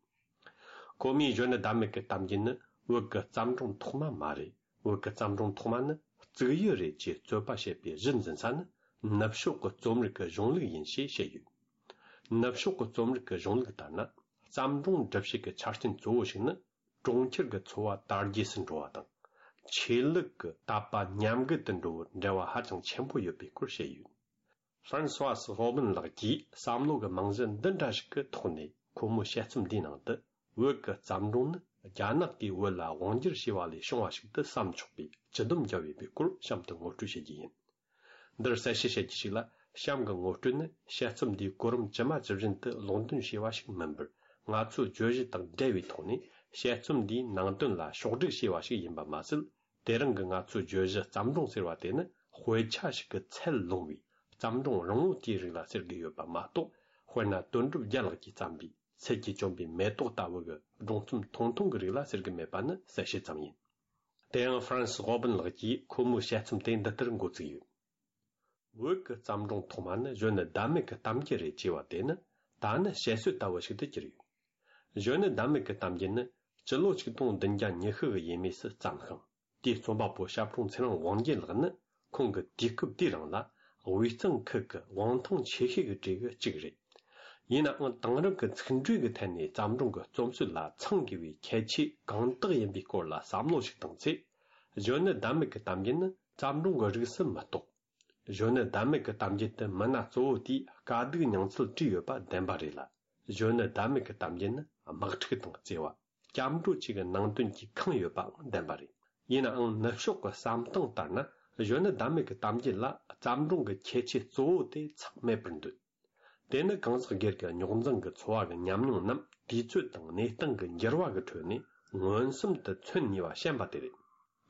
ཁོ་མོས་གཞོན་ནུ་ཟླ་མེད་ཀྱི་གཏམ་རྒྱུད་ནི་བོད་ཀྱི་བརྩམས་སྒྲུང་ཐོག་མ་མ་རེད། བོད་ཀྱི་བརྩམས་སྒྲུང་ཐོག་མ་ནི་གཙུག་གཡུ་རེད་ཅེས་རྩོད་པ་བྱེད་པའི་གཞི་འཛིན་ས་ནི། ནུབ་ཕྱོགས་ཀྱི་རྩོམ་རིག་གི་གཞུང་ལུགས་ཡིན་ཞེས་བཤད་ཡོད། ནུབ་ཕྱོགས་ཀྱི་རྩོམ་རིག་གི་གཞུང་ལུགས་ལྟར་ན། བརྩམས་སྒྲུང་འབྲི་བྱེད་ཀྱི་ཆ་རྐྱེན་གཙོ་བོ་ཞིག་ནི། གྲོང་ཁྱེར་གྱི་འཚོ་བ་དར་རྒྱས་སུ་འགྲོ་བ་དང་། ཆོས་ལུགས་ཀྱི་དད་པ་ཉམས་རྒུད་དུ་འགྲོ་བར་འབྲེལ་བ་ཧ་ཅང་ཆེན་པོ་ཡོད་པའི་སྐོར་བཤད་ཡོད། ཧྥ་རན་སུ་ཝཱ་སི་ཧོ་བིན་ལགས་ཀྱིས་བསམ་བློ་གི་རྨང་གཞི་འདི་འདྲ་ཞིག་གི་ཐོག་ནས། ཁོ་མོའི་དཔྱད་རྩོམ་འདིའི་ནང་དུ། བོད་ཀྱི་བརྩམས་སྒྲུང་ནི་རྒྱ་ནག་གིས་བོད་ལ་དབང་བསྒྱུར་བྱས་པ་ལས་བྱུང་བ་ཞིག་ཏུ་བསམ་ཆོག་པའི་སྤྱི་སྡོམ་བརྒྱབ་ཡོད་པའི་སྐོར་གཤམ་དུ་ངོ་སྤྲོད་བྱེད་རྒྱུ་ཡིན། འདིར་གསལ་བཤད་བྱེད་རྒྱུ་ཞིག་ལ། གཤམ་གྱི་ངོ་སྤྲོད་ནི་དཔྱད་རྩོམ་འདིའི་གོ་རིམ་ཇི་མ་ཇི་བཞིན་དུ་ཀློག་འདོན་བྱས་པ་ཞིག་མིན་པར། ང་ཚོའི་བརྗོད་གཞི་དང་འབྲེལ་བའི་ཐོག་ནས་དཔྱད་རྩོམ་འདིའི་ནང་དོན་ལ་ཕྱོགས་སྒྲིག་བྱས་པ་ཞིག་ཡིན་པ་མ་ཟད། དེ་རིང་གི་ང་ཚོའི་བརྗོད་གཞི་བརྩམས་སྒྲུང་ཟེར་བ་དེ་ནི་དཔེ་ཆ་ཞིག་གི་ཚད་ལོངས་པའི་བརྩམས་སྒྲུང་རིང་བོ་དེའི་རིགས་ལ་ཟེར་གྱི་ཡོད་པ་མ་གཏོགས། དཔེར་ན་དོན་གྲུབ་རྒྱལ་ལགས་ཀྱིས་བརྩམས་པའི་ཚལ་གྱིས་བསྐྱོན་པའི་མེ་ཏོག་ལྟ་བུ་གི་སྒྲུང་རྩོམ་ཐུང་ཐུང་གི་རིགས་ལ་ཟེར་གྱི་མེད་པ་ནི་གསལ་བཤད་ཙམ་ཡིན། དེ་ཡང་ཧྥ་རན་སི་ཧོ་བིན་ལགས་ཀྱིས་ཁོ་མོའི་དཔྱད་རྩོམ་དེ་འདི་ལྟར་འགོ་བཙུགས་ཡོད། བོད་ཀྱི་བརྩམས་སྒྲུང་ཐོག་མ་ནི་གཞོན་ནུ་ཟླ་མེད་ཀྱི་གཏམ་རྒྱུད་རེད་ཅེས་པ་དེ་ནི། ད་ནི་བཤད་སྲོལ་ལྟ་བུ་ཞིག་ཏུ་གྱུར་ཡོད། གཞོན་ནུ་ཟླ་མེད་ཀྱི་གཏམ་རྒྱུད་ནི་སྤྱི་ལོ་ཆིག་སྟོང་བདུན་བརྒྱ་ཉི་ཤུ་གི་ཡས་མས་སུ་བརྩམས་ཤིང་། དེའི་རྩོམ་པ་པོ་ཞབས་དྲུང་ཚེ་རིང་དབང་རྒྱལ་ལགས་ནི་ཁོང་གི་དུས་སྐབས་དེའི་རིང་ལ་དབུས་གཙང་ཁུལ་གྱི་དབང་ཐང་ཆེ་ཤོས་ཀྱི་གྲས་ཀྱི་གཅིག་རེད། ཡིན་ནའང་དེང་རབས་ཀྱི་ཚིག་འགྲོས་ཀྱི་ཐད་ནས་བརྩམས་སྒྲུང་གི་རྩོམ་སྲོལ་ལ་ཚང་དགོས་པའི་ཁྱད་ཆོས་གང་དག་ཡིན་པའི་སྐོར་ལ་བསམ་བློ་ཞིག་བཏང་ཚེ། གཞོན་ནུ་ཟླ་མེད་ཀྱི་གཏམ་རྒྱུད་ནི་བརྩམས་སྒྲུང་གི་རིགས་སུ་མི་གཏོགས། གཞོན་ནུ་ཟླ་མེད་ཀྱི་གཏམ་རྒྱུད་དུ་མི་སྣ་གཙོ་བོ་དེའི་དཀའ་སྡུག་མྱོང་ཚུལ་བྲིས་ཡོད་པ་བདེན་པ་རེད་ལ། གཞོན་ནུ་ཟླ་མེད་ཀྱི་གཏམ་རྒྱུད་ནི་དམག་འཁྲུག་དང་བརྩེ་བ། སྐྱབས་འགྲོ་བཅས་ཀྱི་ནང་དོན་གྱིས་ཁེངས་ཡོད་པའང་བདེན་པ་རེད། ཡིན་ནའང་ནུབ་ཕྱོགས་ཀྱི་བསམ་སྟངས་ལྟར་ན། གཞོན་ནུ་ཟླ་མེད་ཀྱི་གཏམ་རྒྱུད་ལ་བརྩམས་སྒྲུང་གི་ཁྱད་ཆོས་གཙོ་བོ་དེ་ཚང་མེད་པར་འདོད། དེ་ནི་གང་ཟག་སྒེར་གྱི་རྙོག་འཛིང་གི་འཚོ་བ་གི་ཉམས་མྱོང་རྣམས་དུས་ཚོད་དང་གནས་སྟངས་ཀྱི་འགྱུར་བ་གི་ཁྲོད་ནས་མངོན་སུམ་དུ་མཚོན་ནུས་པ་ཞན་པ་དེ་རེད།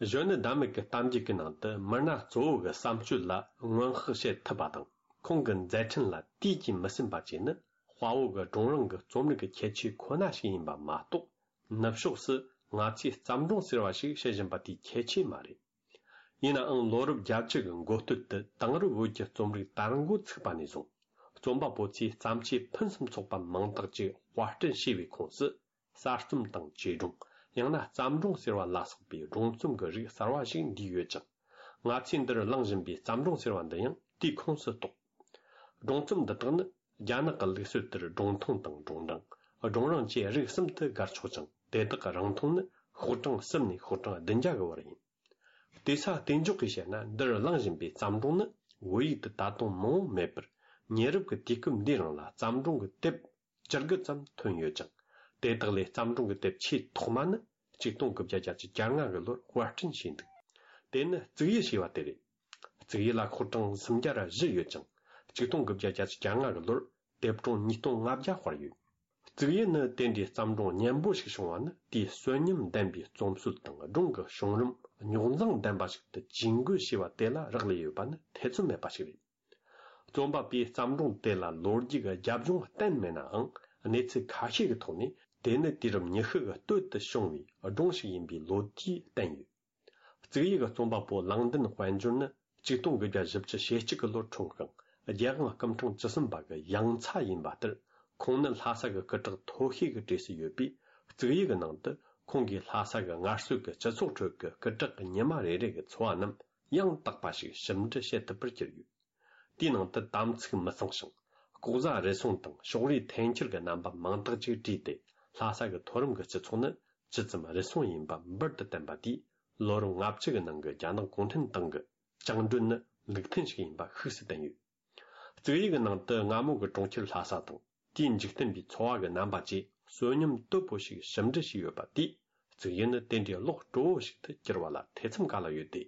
གཞོན་ནུ་ཟླ་མེད་ཀྱི་གཏམ་རྒྱུད་ཀྱི་ནང་དུ་མི་སྣ་གཙོ་བོ་གི་བསམ་སྤྱོད་ལ་སྔོན་དཔག་བྱེད་ཐུབ་པ་དང་། ཁོང་གི་མཛད་འཕྲིན་ལ་དུས་ཀྱིས་མི་ཟིན་པ་བཅས་ནི་དཔའ་བོ་གི་སྒྲུང་རིང་གི་རྩོམ་རིག་གི་ཁྱད་ཆོས་ཁོ་ན་ཞིག་ཡིན་པ་མ་གཏོགས། ནུབ་ཕྱོགས་སུ་ང་ཚོས་བརྩམས་སྒྲུང་ཟེར་བ་ཞིག་བཤད་བཞིན་པ་དེའི་ཁྱད་ཆོས་མ་རེད། ཡིན་ནའང་ལོ་རབས་བརྒྱད་ཅུ་གི་འགོ་སྟོད་དུ་དེང་རབས་བོད་ཀྱི་རྩོམ་རིག་དར་འགོ་ཚུགས་པ་ནས་བཟུང་། རྩོམ་པ་པོ་ཚོས་བརྩམས་ཆོས་ཕུན་སུམ་ཚོགས་པ་མང་དག་ཅིག་དཔར་སྐྲུན་བྱས་པའི་ཁོངས་སུ། གསར་རྩོམ་དང་བཅོས་སྒྲུང་། ཡང་ན་བརྩམས་སྒྲུང་ཟེར་བ་ལ་སོགས་པའི་སྒྲུང་རྩོམ་གྱི་རིགས་གསར་བ་ཞིག་འདུས་ཡོད་ཅིང་། ང་ཚོས་འདིར་གླེང་བཞིན་པའི་བརྩམས་སྒྲུང་ཟེར་བ་འདི་ཡང་དེའི་ཁོངས་སུ་གཏོགས། སྒྲུང་རྩོམ་འདི་དག་ནི་རྒྱ་ནག་གི་ལུགས་སྲོལ་ལྟར་སྒྲུང་ཐུང་དང་སྒྲུང་རིང་། སྒྲུང་རིང་བཅས་རིགས་གསུམ་དུ་དགར་ཆོག་ཅིང་། དེ་དག་གི་རིང་ཐུང་ནི་ཤོག་གྲངས་གསུམ་ནས་ཤོག་གྲངས་བདུན་བརྒྱ་གི་བར་ཡིན། བལྟས་ས་གཏན་འཇོག་གིས་བཤད་ན། འདིར་གླེང་བཞིན་པའི་བརྩམས་སྒྲུང་ནི་བོད་ཡིག་ཏུ་ད་དུང་མང་བོ་མེད་པར། ཉེ་རབས་ཀྱི་དུས་སྐབས་འདིའི་རིང་ལ་བརྩམས་སྒྲུང་གི་དེབ་བཅུ་དགུ་ཙམ་ཐོན་ཡོད་ཅིང་། དེ་དག་ལས་བརྩམས་སྒྲུང་གི་དེབ་ཆེས་ཐོག་མ་ནི་ཆིག་སྟོང་དགུ་བརྒྱ་བརྒྱད་ཅུ་གྱ་ལྔ་གི་ལོར་དཔར་སྐྲུན་བྱས་འདུག་དེ་ནི་གཙུག་ཡུལ་ཞེས་པ་དེ་རེད། གཙུག་ཡུལ་ལ་ཤོག་གྲངས་སུམ་བརྒྱ་ར་བཞི་ཡོད་ཅིང་། ཆིག་སྟོང་དགུ་བརྒྱ་བརྒྱད་ཅུ་གྱ་ལྔ་གི་ལོར་དེབ་གྲངས་ཉིས་སྟོང་ལྔ་བརྒྱ་དཔར་ཡོད། གཙུག་ཡུལ་ནི་དེ་འདྲའི་བརྩམས་སྒྲུང་སྙན་པོ་ཞིག་བྱུང་བ་ནི། དེའི་གསོན་ཉམས་ལྡན་པའི་རྩོམ་སྲོལ་དང་སྒྲུང་གི་བྱུང་རིམ་རྙོག་འཛིང་ལྡན་པ་ཞིག་ཏུ་ཇུས་འགོད་བྱས་པ་དེ་ལ་རག་ལས་ཡོད་པ་ནི་ཐེ་ཚོམ་མེད་པ་ཞིག་རེད། རྩོམ་པ་པོས་བརྩམས་སྒྲུང་དེ་ལ་ལོ་རྒྱུས་ཀྱི་རྒྱབ་ལྗོངས་བསྟན་མེད་ནའང་། གནས་ཚུལ་ཁ་ཤས་ཀྱི་ཐོག་ནས་དེ་ནི་དུས་རབས་ཉི་ཤུ་གི་སྟོད་དུ་བྱུང་བའི་སྒྲུང་ཞིག་ཡིན་པའི་ལོ་རྒྱུས་བསྟན་ཡོད། གཙུག་ཡུལ་གྱི་རྩོམ་པ་པོ་ལང་ལྡན་དཔལ་འབྱོར་ནི་ཆིག་སྟོང་དགུ་བརྒྱ་བཞི་བཅུ་ཞེ་གཅིག་གི་ལོར་འཁྲུངས་ཤིང་། རྒྱལ་དབང་སྐུ་ཕྲེང་བཅུ་གསུམ་པ་གི་ཡང་ཚ་ཡིན་པ་ལྟར། ཁོང་ནི་ལྷ་ས་གི་སྐུ་དྲག་མཐོ་ཤོས་ཀྱི་གྲས་སུ་ཡོད་པས། གཙུག་ཡུལ་གྱི་ནང་དུ་ཁོང་གིས་ལྷ་ས་གི་སྔར་སྲོལ་གྱི་སྤྱི་ཚོགས་ཁྲོད་ཀྱི་སྐུ་དྲག་གི་ཉི་མ་རེ་རེ་གི་འཚོ་བ་རྣམས་ཡང་དག་པ་ཞིག་ཞིབ་འབྲི་བྱེད་ཐུབ་པར་གྱུར་ཡོད། དེའི་ནང་དུ་དམ་ཚིག་མི་གཙང་ཞིང་། ལྐོག་ཟ་རུལ་སུངས་དང་ཕྱོགས་རིས་འཐེན་འཁྱེར་གྱི་རྣམ་པ་མང་དག་ཅིག་བྲིས་ཏེ། ལྷ་ས་གི་མཐོ་རིམ་གྱི་སྤྱི་ཚོགས་ནི་ཇི་ཙམ་རུལ་སུངས་ཡིན་པ་འབུར་དུ་བསྟན་པ་དེས། ལོ་རབས་ལྔ་བཅུ་གི་ནང་གི་རྒྱ་ནག་གུང་ཁྲན་ཏང་གི་བཅིངས་འགྲོལ་ནི་ལུགས་མཐུན་ཞིག་ཡིན་པ་ཤུགས་སུ་བསྟན་ཡོད། གཙུག་ཡུལ་གྱི་ནང་དུ་སྔ་མོ་གི་གྲོང་ཁྱེར་ལྷ་ས་དང་། དེའི་འཇིག་རྟེན་པའི་འཚོ་བ་གི་རྣམ་པ་བཅས་གསོན་ཉམས་དོད་པོ་ཞིག་ཞིབ་འབྲི་བྱས་ཡོད་པ་དེས། གཙུག་ཡུལ་ནི་དེ་འདྲའི་ཀློག་སྤྲོ་བོ་ཞིག་ཏུ་གྱུར་བ་ལ་ཐེ་ཚོམ་ག་ལ་ཡོད་དེ།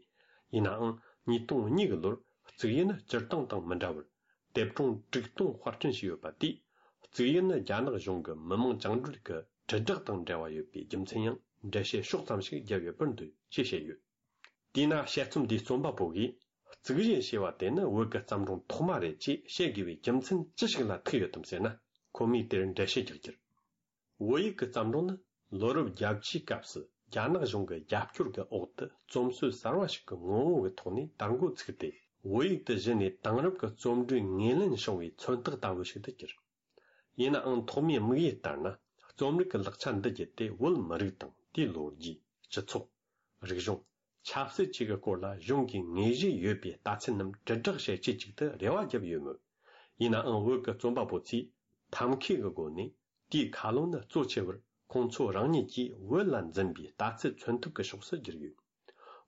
ཡིན་ནའང་། ཉིས་སྟོང་གཉིས་གི་ལོར་གཙུག་ཡུལ་ནི་སྤྱིར་བཏང་དང་མི་འདྲ་བར། དེབ་གྲངས་དྲུག་སྟོང་དཔར་སྐྲུན་བྱས་ཡོད་པ་དེས། གཙུག་ཡུལ་ནི་རྒྱ་ནག་གཞུང་གི་མི་དམངས་བཅིངས་འགྲོལ་གྱི་དྲིལ་བསྒྲགས་དང་འབྲེལ་བ་ཡོད་པའི་རྒྱུ་མཚན་ཡང་འགྲེལ་བཤད་ཕྱོགས་ཙམ་ཞིག་བརྒྱབ་ཡོད་པར་འདོད་ཅེས་བཤད་ཡོད། དེས་ན་དཔྱད་རྩོམ་འདིའི་རྩོམ་པ་པོ་གིས། གཙུག་རྒྱན་ཞེས་པ་དེ་ནི་བོད་ཀྱི་བརྩམས་སྒྲུང་ཐོག་མ་རེད་ཅེས་བཤད་དགོས་པའི་རྒྱུ་མཚན་ཅི་ཞིག་ལ་ཐུག་ཡོད་དམ་ཟེར་ན། ཁོ་མོས་དེར་འགྲེལ་བཤད་རྒྱག་རྒྱུར། བོད་ཡིག་གི་བརྩམས་སྒྲུང་ནི་ལོ་རབས་བརྒྱད་ཅུའི་སྐབས་སུ་རྒྱ་ནག་གཞུང་གི་རྒྱབ་སྐྱོར་གྱི་འོག་ཏུ་རྩོམ་སྲོལ་གསར་བ་ཞིག་གི་ངོ་བོ་གི་ཐོག་ནས་དར་འགོ་ཚུགས་ཏེ། བོད་ཡིག་ཏུ་གཞི་ནས་དེང་རབས་ཀྱི་རྩོམ་འབྲིའི་ངོས་ལེན་བྱུང་བའི་མཚོན་རྟགས་ལྟ་བུ་ཞིག་ཏུ་གྱུར། ཡིན་ནའང་ཐོག་མའི་དམིགས་ཡུལ་ལྟར་ན། རྩོམ་རིག་གི་ལག་ཆ་འདི་བརྒྱུད་དེ་བོད་མི་རིགས་དང་དེའི་ལོ་རྒྱུས། སྤྱི་ཚོགས། རིག་གཞུང་། ཆབ་སྲིད་བཅས་ཀྱི་སྐོར་ལ་གཞུང་གིས་ངེས་ཤེས་ཡོད་པའི་ལྟ་ཚུལ་རྣམས་དྲིལ་བསྒྲགས་བྱེད་ཆེད་ཅིག་ཏུ་རེ་བ་བརྒྱབ་ཡོད་མོད། ཡིན་ནའང་བོད་ཀྱི་རྩོམ་པ་པོ་ཚོས་ཐབས་མཁས་ཀྱི་སྒོ་ནས་དེའི་ཁ་ལོ་ནི་གཙོ་ཆེ་བར་ཁོང་ཚོ་རང་ཉིད་ཀྱིས་བོད་ལ་འཛིན་པའི་ལྟ་ཚུལ་མཚོན་ཐབས་ཀྱི་ཕྱོགས་སུ་བསྒྱུར་ཡོད།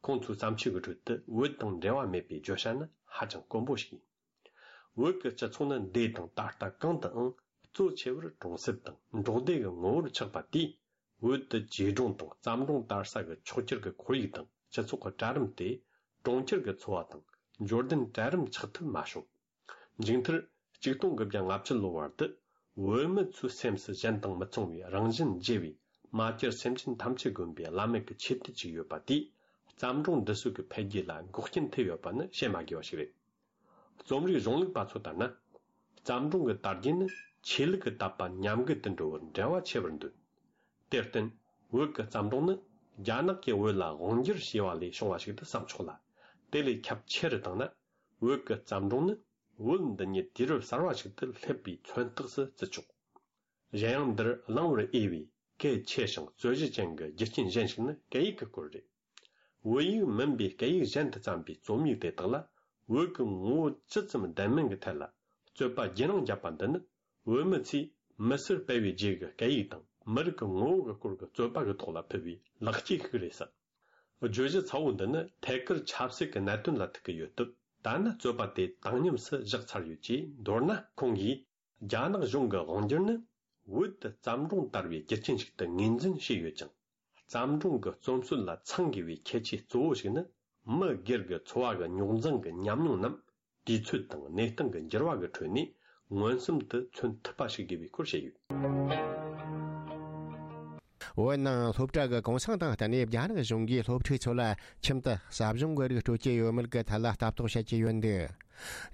ཁོང་ཚོའི་བརྩམས་ཆོས་ཀྱི་ཁྲོད་དུ་བོད་དང་འབྲེལ་བ་མེད་པའི་བརྗོད་བྱ་ནི་ཧ་ཅང་དཀོན་པོ་ཞིག་ཡིན། བོད་ཀྱི་སྤྱི་ཚོགས་ནི་འདས་དང་ད་ལྟ་གང་དུའང་གཙོ་ཆེ་བར་གྲོང་གསེབ་དང་འབྲོག་སྡེ་གི་ངོ་བོར་ཆགས་པ་དེས། བོད་དུ་བྱིས་སྒྲུང་དང་བརྩམས་སྒྲུང་དར་ས་གི་ཕྱོགས་གྱུར་གྱི་ཁོར་ཡུག་དང་སྤྱི་ཚོགས་ཀྱི་གྲལ་རིམ་དེ་གྲོང་ཁྱེར་གྱི་འཚོ་བ་དང་འབྱོར་ལྡན་གྲལ་རིམ་ཆགས་ཐུབ་མ་བྱུང་། མཇུག་མཐར། ཆིག་སྟོང་དགུ་བརྒྱ་ལྔ་བཅུ་ལོ་བར་དུ། བོད་མི་ཚོའི་སེམས་སུ་གཞན་དང་མི་མཚུངས་པའི་རང་བཞིན་བརྗེ་བའི་མ་གྱུར་སེམས་ཅན་ཐམས་ཅད་བསྒོམ་པའི་བླ་མེད་ཀྱི་ཆོས་དུས་ཅིག་ཡོད་པ་དེས། བརྩམས་སྒྲུང་འདི་ཚོ་གི་འཕེལ་རྒྱས་ལ་འགོག་རྐྱེན་ཐེབས་ཡོད་པ་ནི་བཤད་མ་དགོས་པ་ཞིག་རེད། རྩོམ་རིག་གཞུང་ལུགས་པ་ཚོ་ལྟར་ན། བརྩམས་སྒྲུང་གི་དར་རྒྱས་ནི་ཆོས་ལུགས་ཀྱི་དད་པ་ཉམས་རྒུད་དུ་འགྲོ་བར་འབྲེལ་བ་ཆེ་བར་འདོད། དེར་བརྟེན། བོད་ཀྱི་བརྩམས་སྒྲུང་ནི་རྒྱ་ནག་གིས་བོད་ལ་དབང་བསྒྱུར་བྱས་པ་ལས་བྱུང་བ་ཞིག་ཏུ་བསམ་ཆོག་ལ། དེ་ལས་ཁྱབ་ཆེ་རུ་བཏང་ན། བོད་ཀྱི་བརྩམས་སྒྲུང་ནི་བོད་འདི་ཉིད་དུས་རབས་གསར་བ་ཞིག་ཏུ་སླེབས་པའི་མཚོན་རྟགས་སུ་བརྩི་ཆོག་གཞན་ཡང་འདིར་གླེང་བར་འོས་པའི་གལ་ཆེ་ཞིང་རྩོད་གཞི་ཅན་གྱི་རྒྱུ་རྐྱེན་གཞན་ཞིག་ནི་སྐད་ཡིག་གི་སྐོར་རེད། བོད་ཡིག་མིན་པའི་སྐད་ཡིག་གཞན་དུ་བརྩམས་པའི་རྩོམ་ཡིག་དེ་དག་ལ་བོད་ཀྱི་ངོ་བོ་ཇི་ཙམ་ལྡན་མིན་གྱི་ཐད་ལ་རྩོད་པ་རྒྱུན་རིང་བརྒྱབ་པ་འདི་ནི། བོད་མི་ཚོས་མི་སེར་སྤེལ་བའི་རྗེས་ཀྱི་སྐད་ཡིག་དང་མི་རིགས་ཀྱི་ངོ་བོ་གི་སྐོར་གྱི་རྩོད་པ་གི་ཐོག་ལ་ཕུལ་བའི་ལེགས་སྐྱེས་ཤིག་རེད་ཟེར། བརྗོད་གཞི་ཚ་བོ་འདི་ནི་ཐད་ཀར་ཆབ་སྲིད་ཀྱི་གནད་དོན་ལ་ཐུག་གི་ཡོད་སྟབས། ད་ནི་རྩོད་པ་དེ་བཏང་སྙོམས་སུ་བཞག་ཚར་ཡོད་ཅེས་མདོར་ན། ཁོང་གིས། རྒྱ་ནག་གཞུང་གི་དབང་སྒྱུར་ནི་བོད་དུ་བརྩམས་སྒྲུང་དར་བའི་རྒྱུ་རྐྱེན་ཞིག་ཏུ་ངོས་འཛིན་བྱས་ཡོད་ཅིང་། བརྩམས་སྒྲུང་གི་རྩོམ་སྲོལ་ལ་ཚང་དགོས་པའི་ཁྱད་ཆོས་གཙོ་བོ་ཞིག་ནི། མི་སྒེར་གྱི་འཚོ་བ་གི་རྙོག་འཛིང་གི་ཉམས་མྱོང་རྣམས་དུས་ཚོད་དང་གནས་སྟངས་ཀྱི་འགྱུར་བ་གི་ཁྲོད་ནས་མངོན་སུམ་དུ་མཚོན་ཐུབ་པ་ཞིག་དགོས་པའི་སྐོར་བཤད་ཡོད། བོད་ནང་སློབ་གྲྭ་གི་གུང་སེང་དང་བསྟུན་ནས་རྒྱ་ནག་གཞུང་གིས་སློབ་ཕྲུག་ཚོ་ལ་ཁྱིམ་དུ་ཟབ་སྦྱོང་གི་རིགས་སྤྲོད་ཀྱི་ཡོད་མེད་ཀྱི་ཐད་ལ་ལྟ་རྟོག་བྱེད་ཀྱི་ཡོད་འདུག་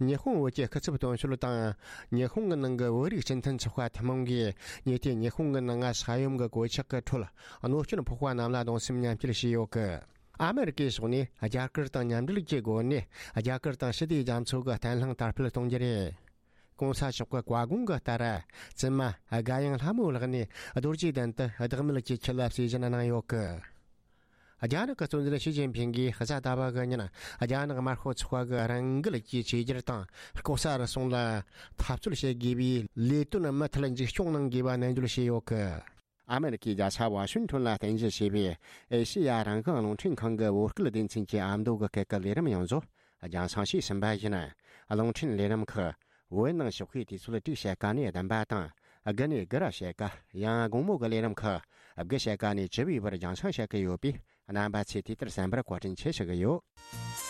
ཉི་ཧོང་བོད་ཀྱི་སྐུ་ཚབ་དོན་གཅོད་དང་། ཉི་ཧོང་གི་ནང་གི་བོད་རིགས་སྤྱི་མཐུན་ཚོགས་པ་ཐུན་མོང་གིས་ཉེ་དུས་ཉི་ཧོང་གི་ནང་ང་ས་ཡོམ་གྱི་གོད་ཆག་གི་ཁྲོད་གནོད་སྐྱོན་ཕོག་པ་རྣམས་ལ་གདུང་སེམས་མཉམ་སྐྱེད་བྱས་ཡོད་ཀི། ཨ་མེ་རི་ཀའི་ཕྱོགས་ནས་རྒྱ་གར་དང་མཉམ་འབྲེལ་གྱི་སྒོ་ནས་རྒྱ་གར་དང་ཞི་བདེའི་རྒྱ་མཚོ་གི་བརྟན་ལྷིང་དར་སྤེལ་གཏོང་རྒྱུ་རེད། གོང་ས་མཆོག་གི་བཀའ་དགོངས་ཀྱི་ལྟར། བཙུན་མ་དགའ་ཡང་ལྷ་མོའི་ལག་ནས་རྡོ་རྗེ་གདན་དུ་བདག་མེད་ཀྱི་ཁྱི་ལ་གསོལ་སྦྱིན་གནང་ཡོད་ཀི། རྒྱ་ནག་གི་གཙོ་འཛིན་ཞི་ཅིན་ཕིང་གིས་གཟའ་ཟླ་བ་གི་ཉིན་རྒྱ་ནག་དམར་ཤོག་ཚོགས་པ་གི་རང་འགུལ་གྱིས་བཅོས་བསྒྱུར་དང་ལྐོག་ཟ་རུལ་སུངས་ལ་འཐབ་རྩོད་བྱེད་དགོས་པའི་ལས་དོན་མུ་མཐུད་མཇུག་སྐྱོང་གནང་དགོས་པ་ནན་བརྗོད་བྱས་ཡོད་ཀི། ཨ་མེ་རི་ཀའི་རྒྱལ་ས་ཝ་ཤིང་ཊོན་ལ་རྟེན་གཞི་བྱས་པའི་ཨེ་ཤེ་ཡ་རང་དབང་རླུང་འཕྲིན་ཁང་གི་བོད་སྐད་སྡེ་ཚན་གྱི་ཨ་མདོ་གི་སྐད་ཀྱི་ལས་རིམ་ཡོངས་རྫོགས་རྒྱང་སྲིང་བྱས་ཟིན་པ་ཡིན། རླུང་འཕྲིན་ལས་རིམ་ཁག་ བོད་ནང་ཞོགས་ཀའི་དུས་ཚོད་དྲུག་ཕྱེད་ཀ་ནས་བདུན་པ་དང་། དགུ་ནས་དགུ་ར་ཕྱེད་ཀ། ཡང་དགོང་མོ་གི་ལས་རིམ་ཁག་དགུ་ཕྱེད་ཀ་ནས་བཅུ་པའི་བར་རྒྱང་སྲིང་བྱེད་ཀྱི་ཡོད་པས། རྣམ་པ་ཚོས་དུས་ལྟར་གསན་པར་བཀའ་དྲིན་ཆེ་ཞུ་གི་ཡོད།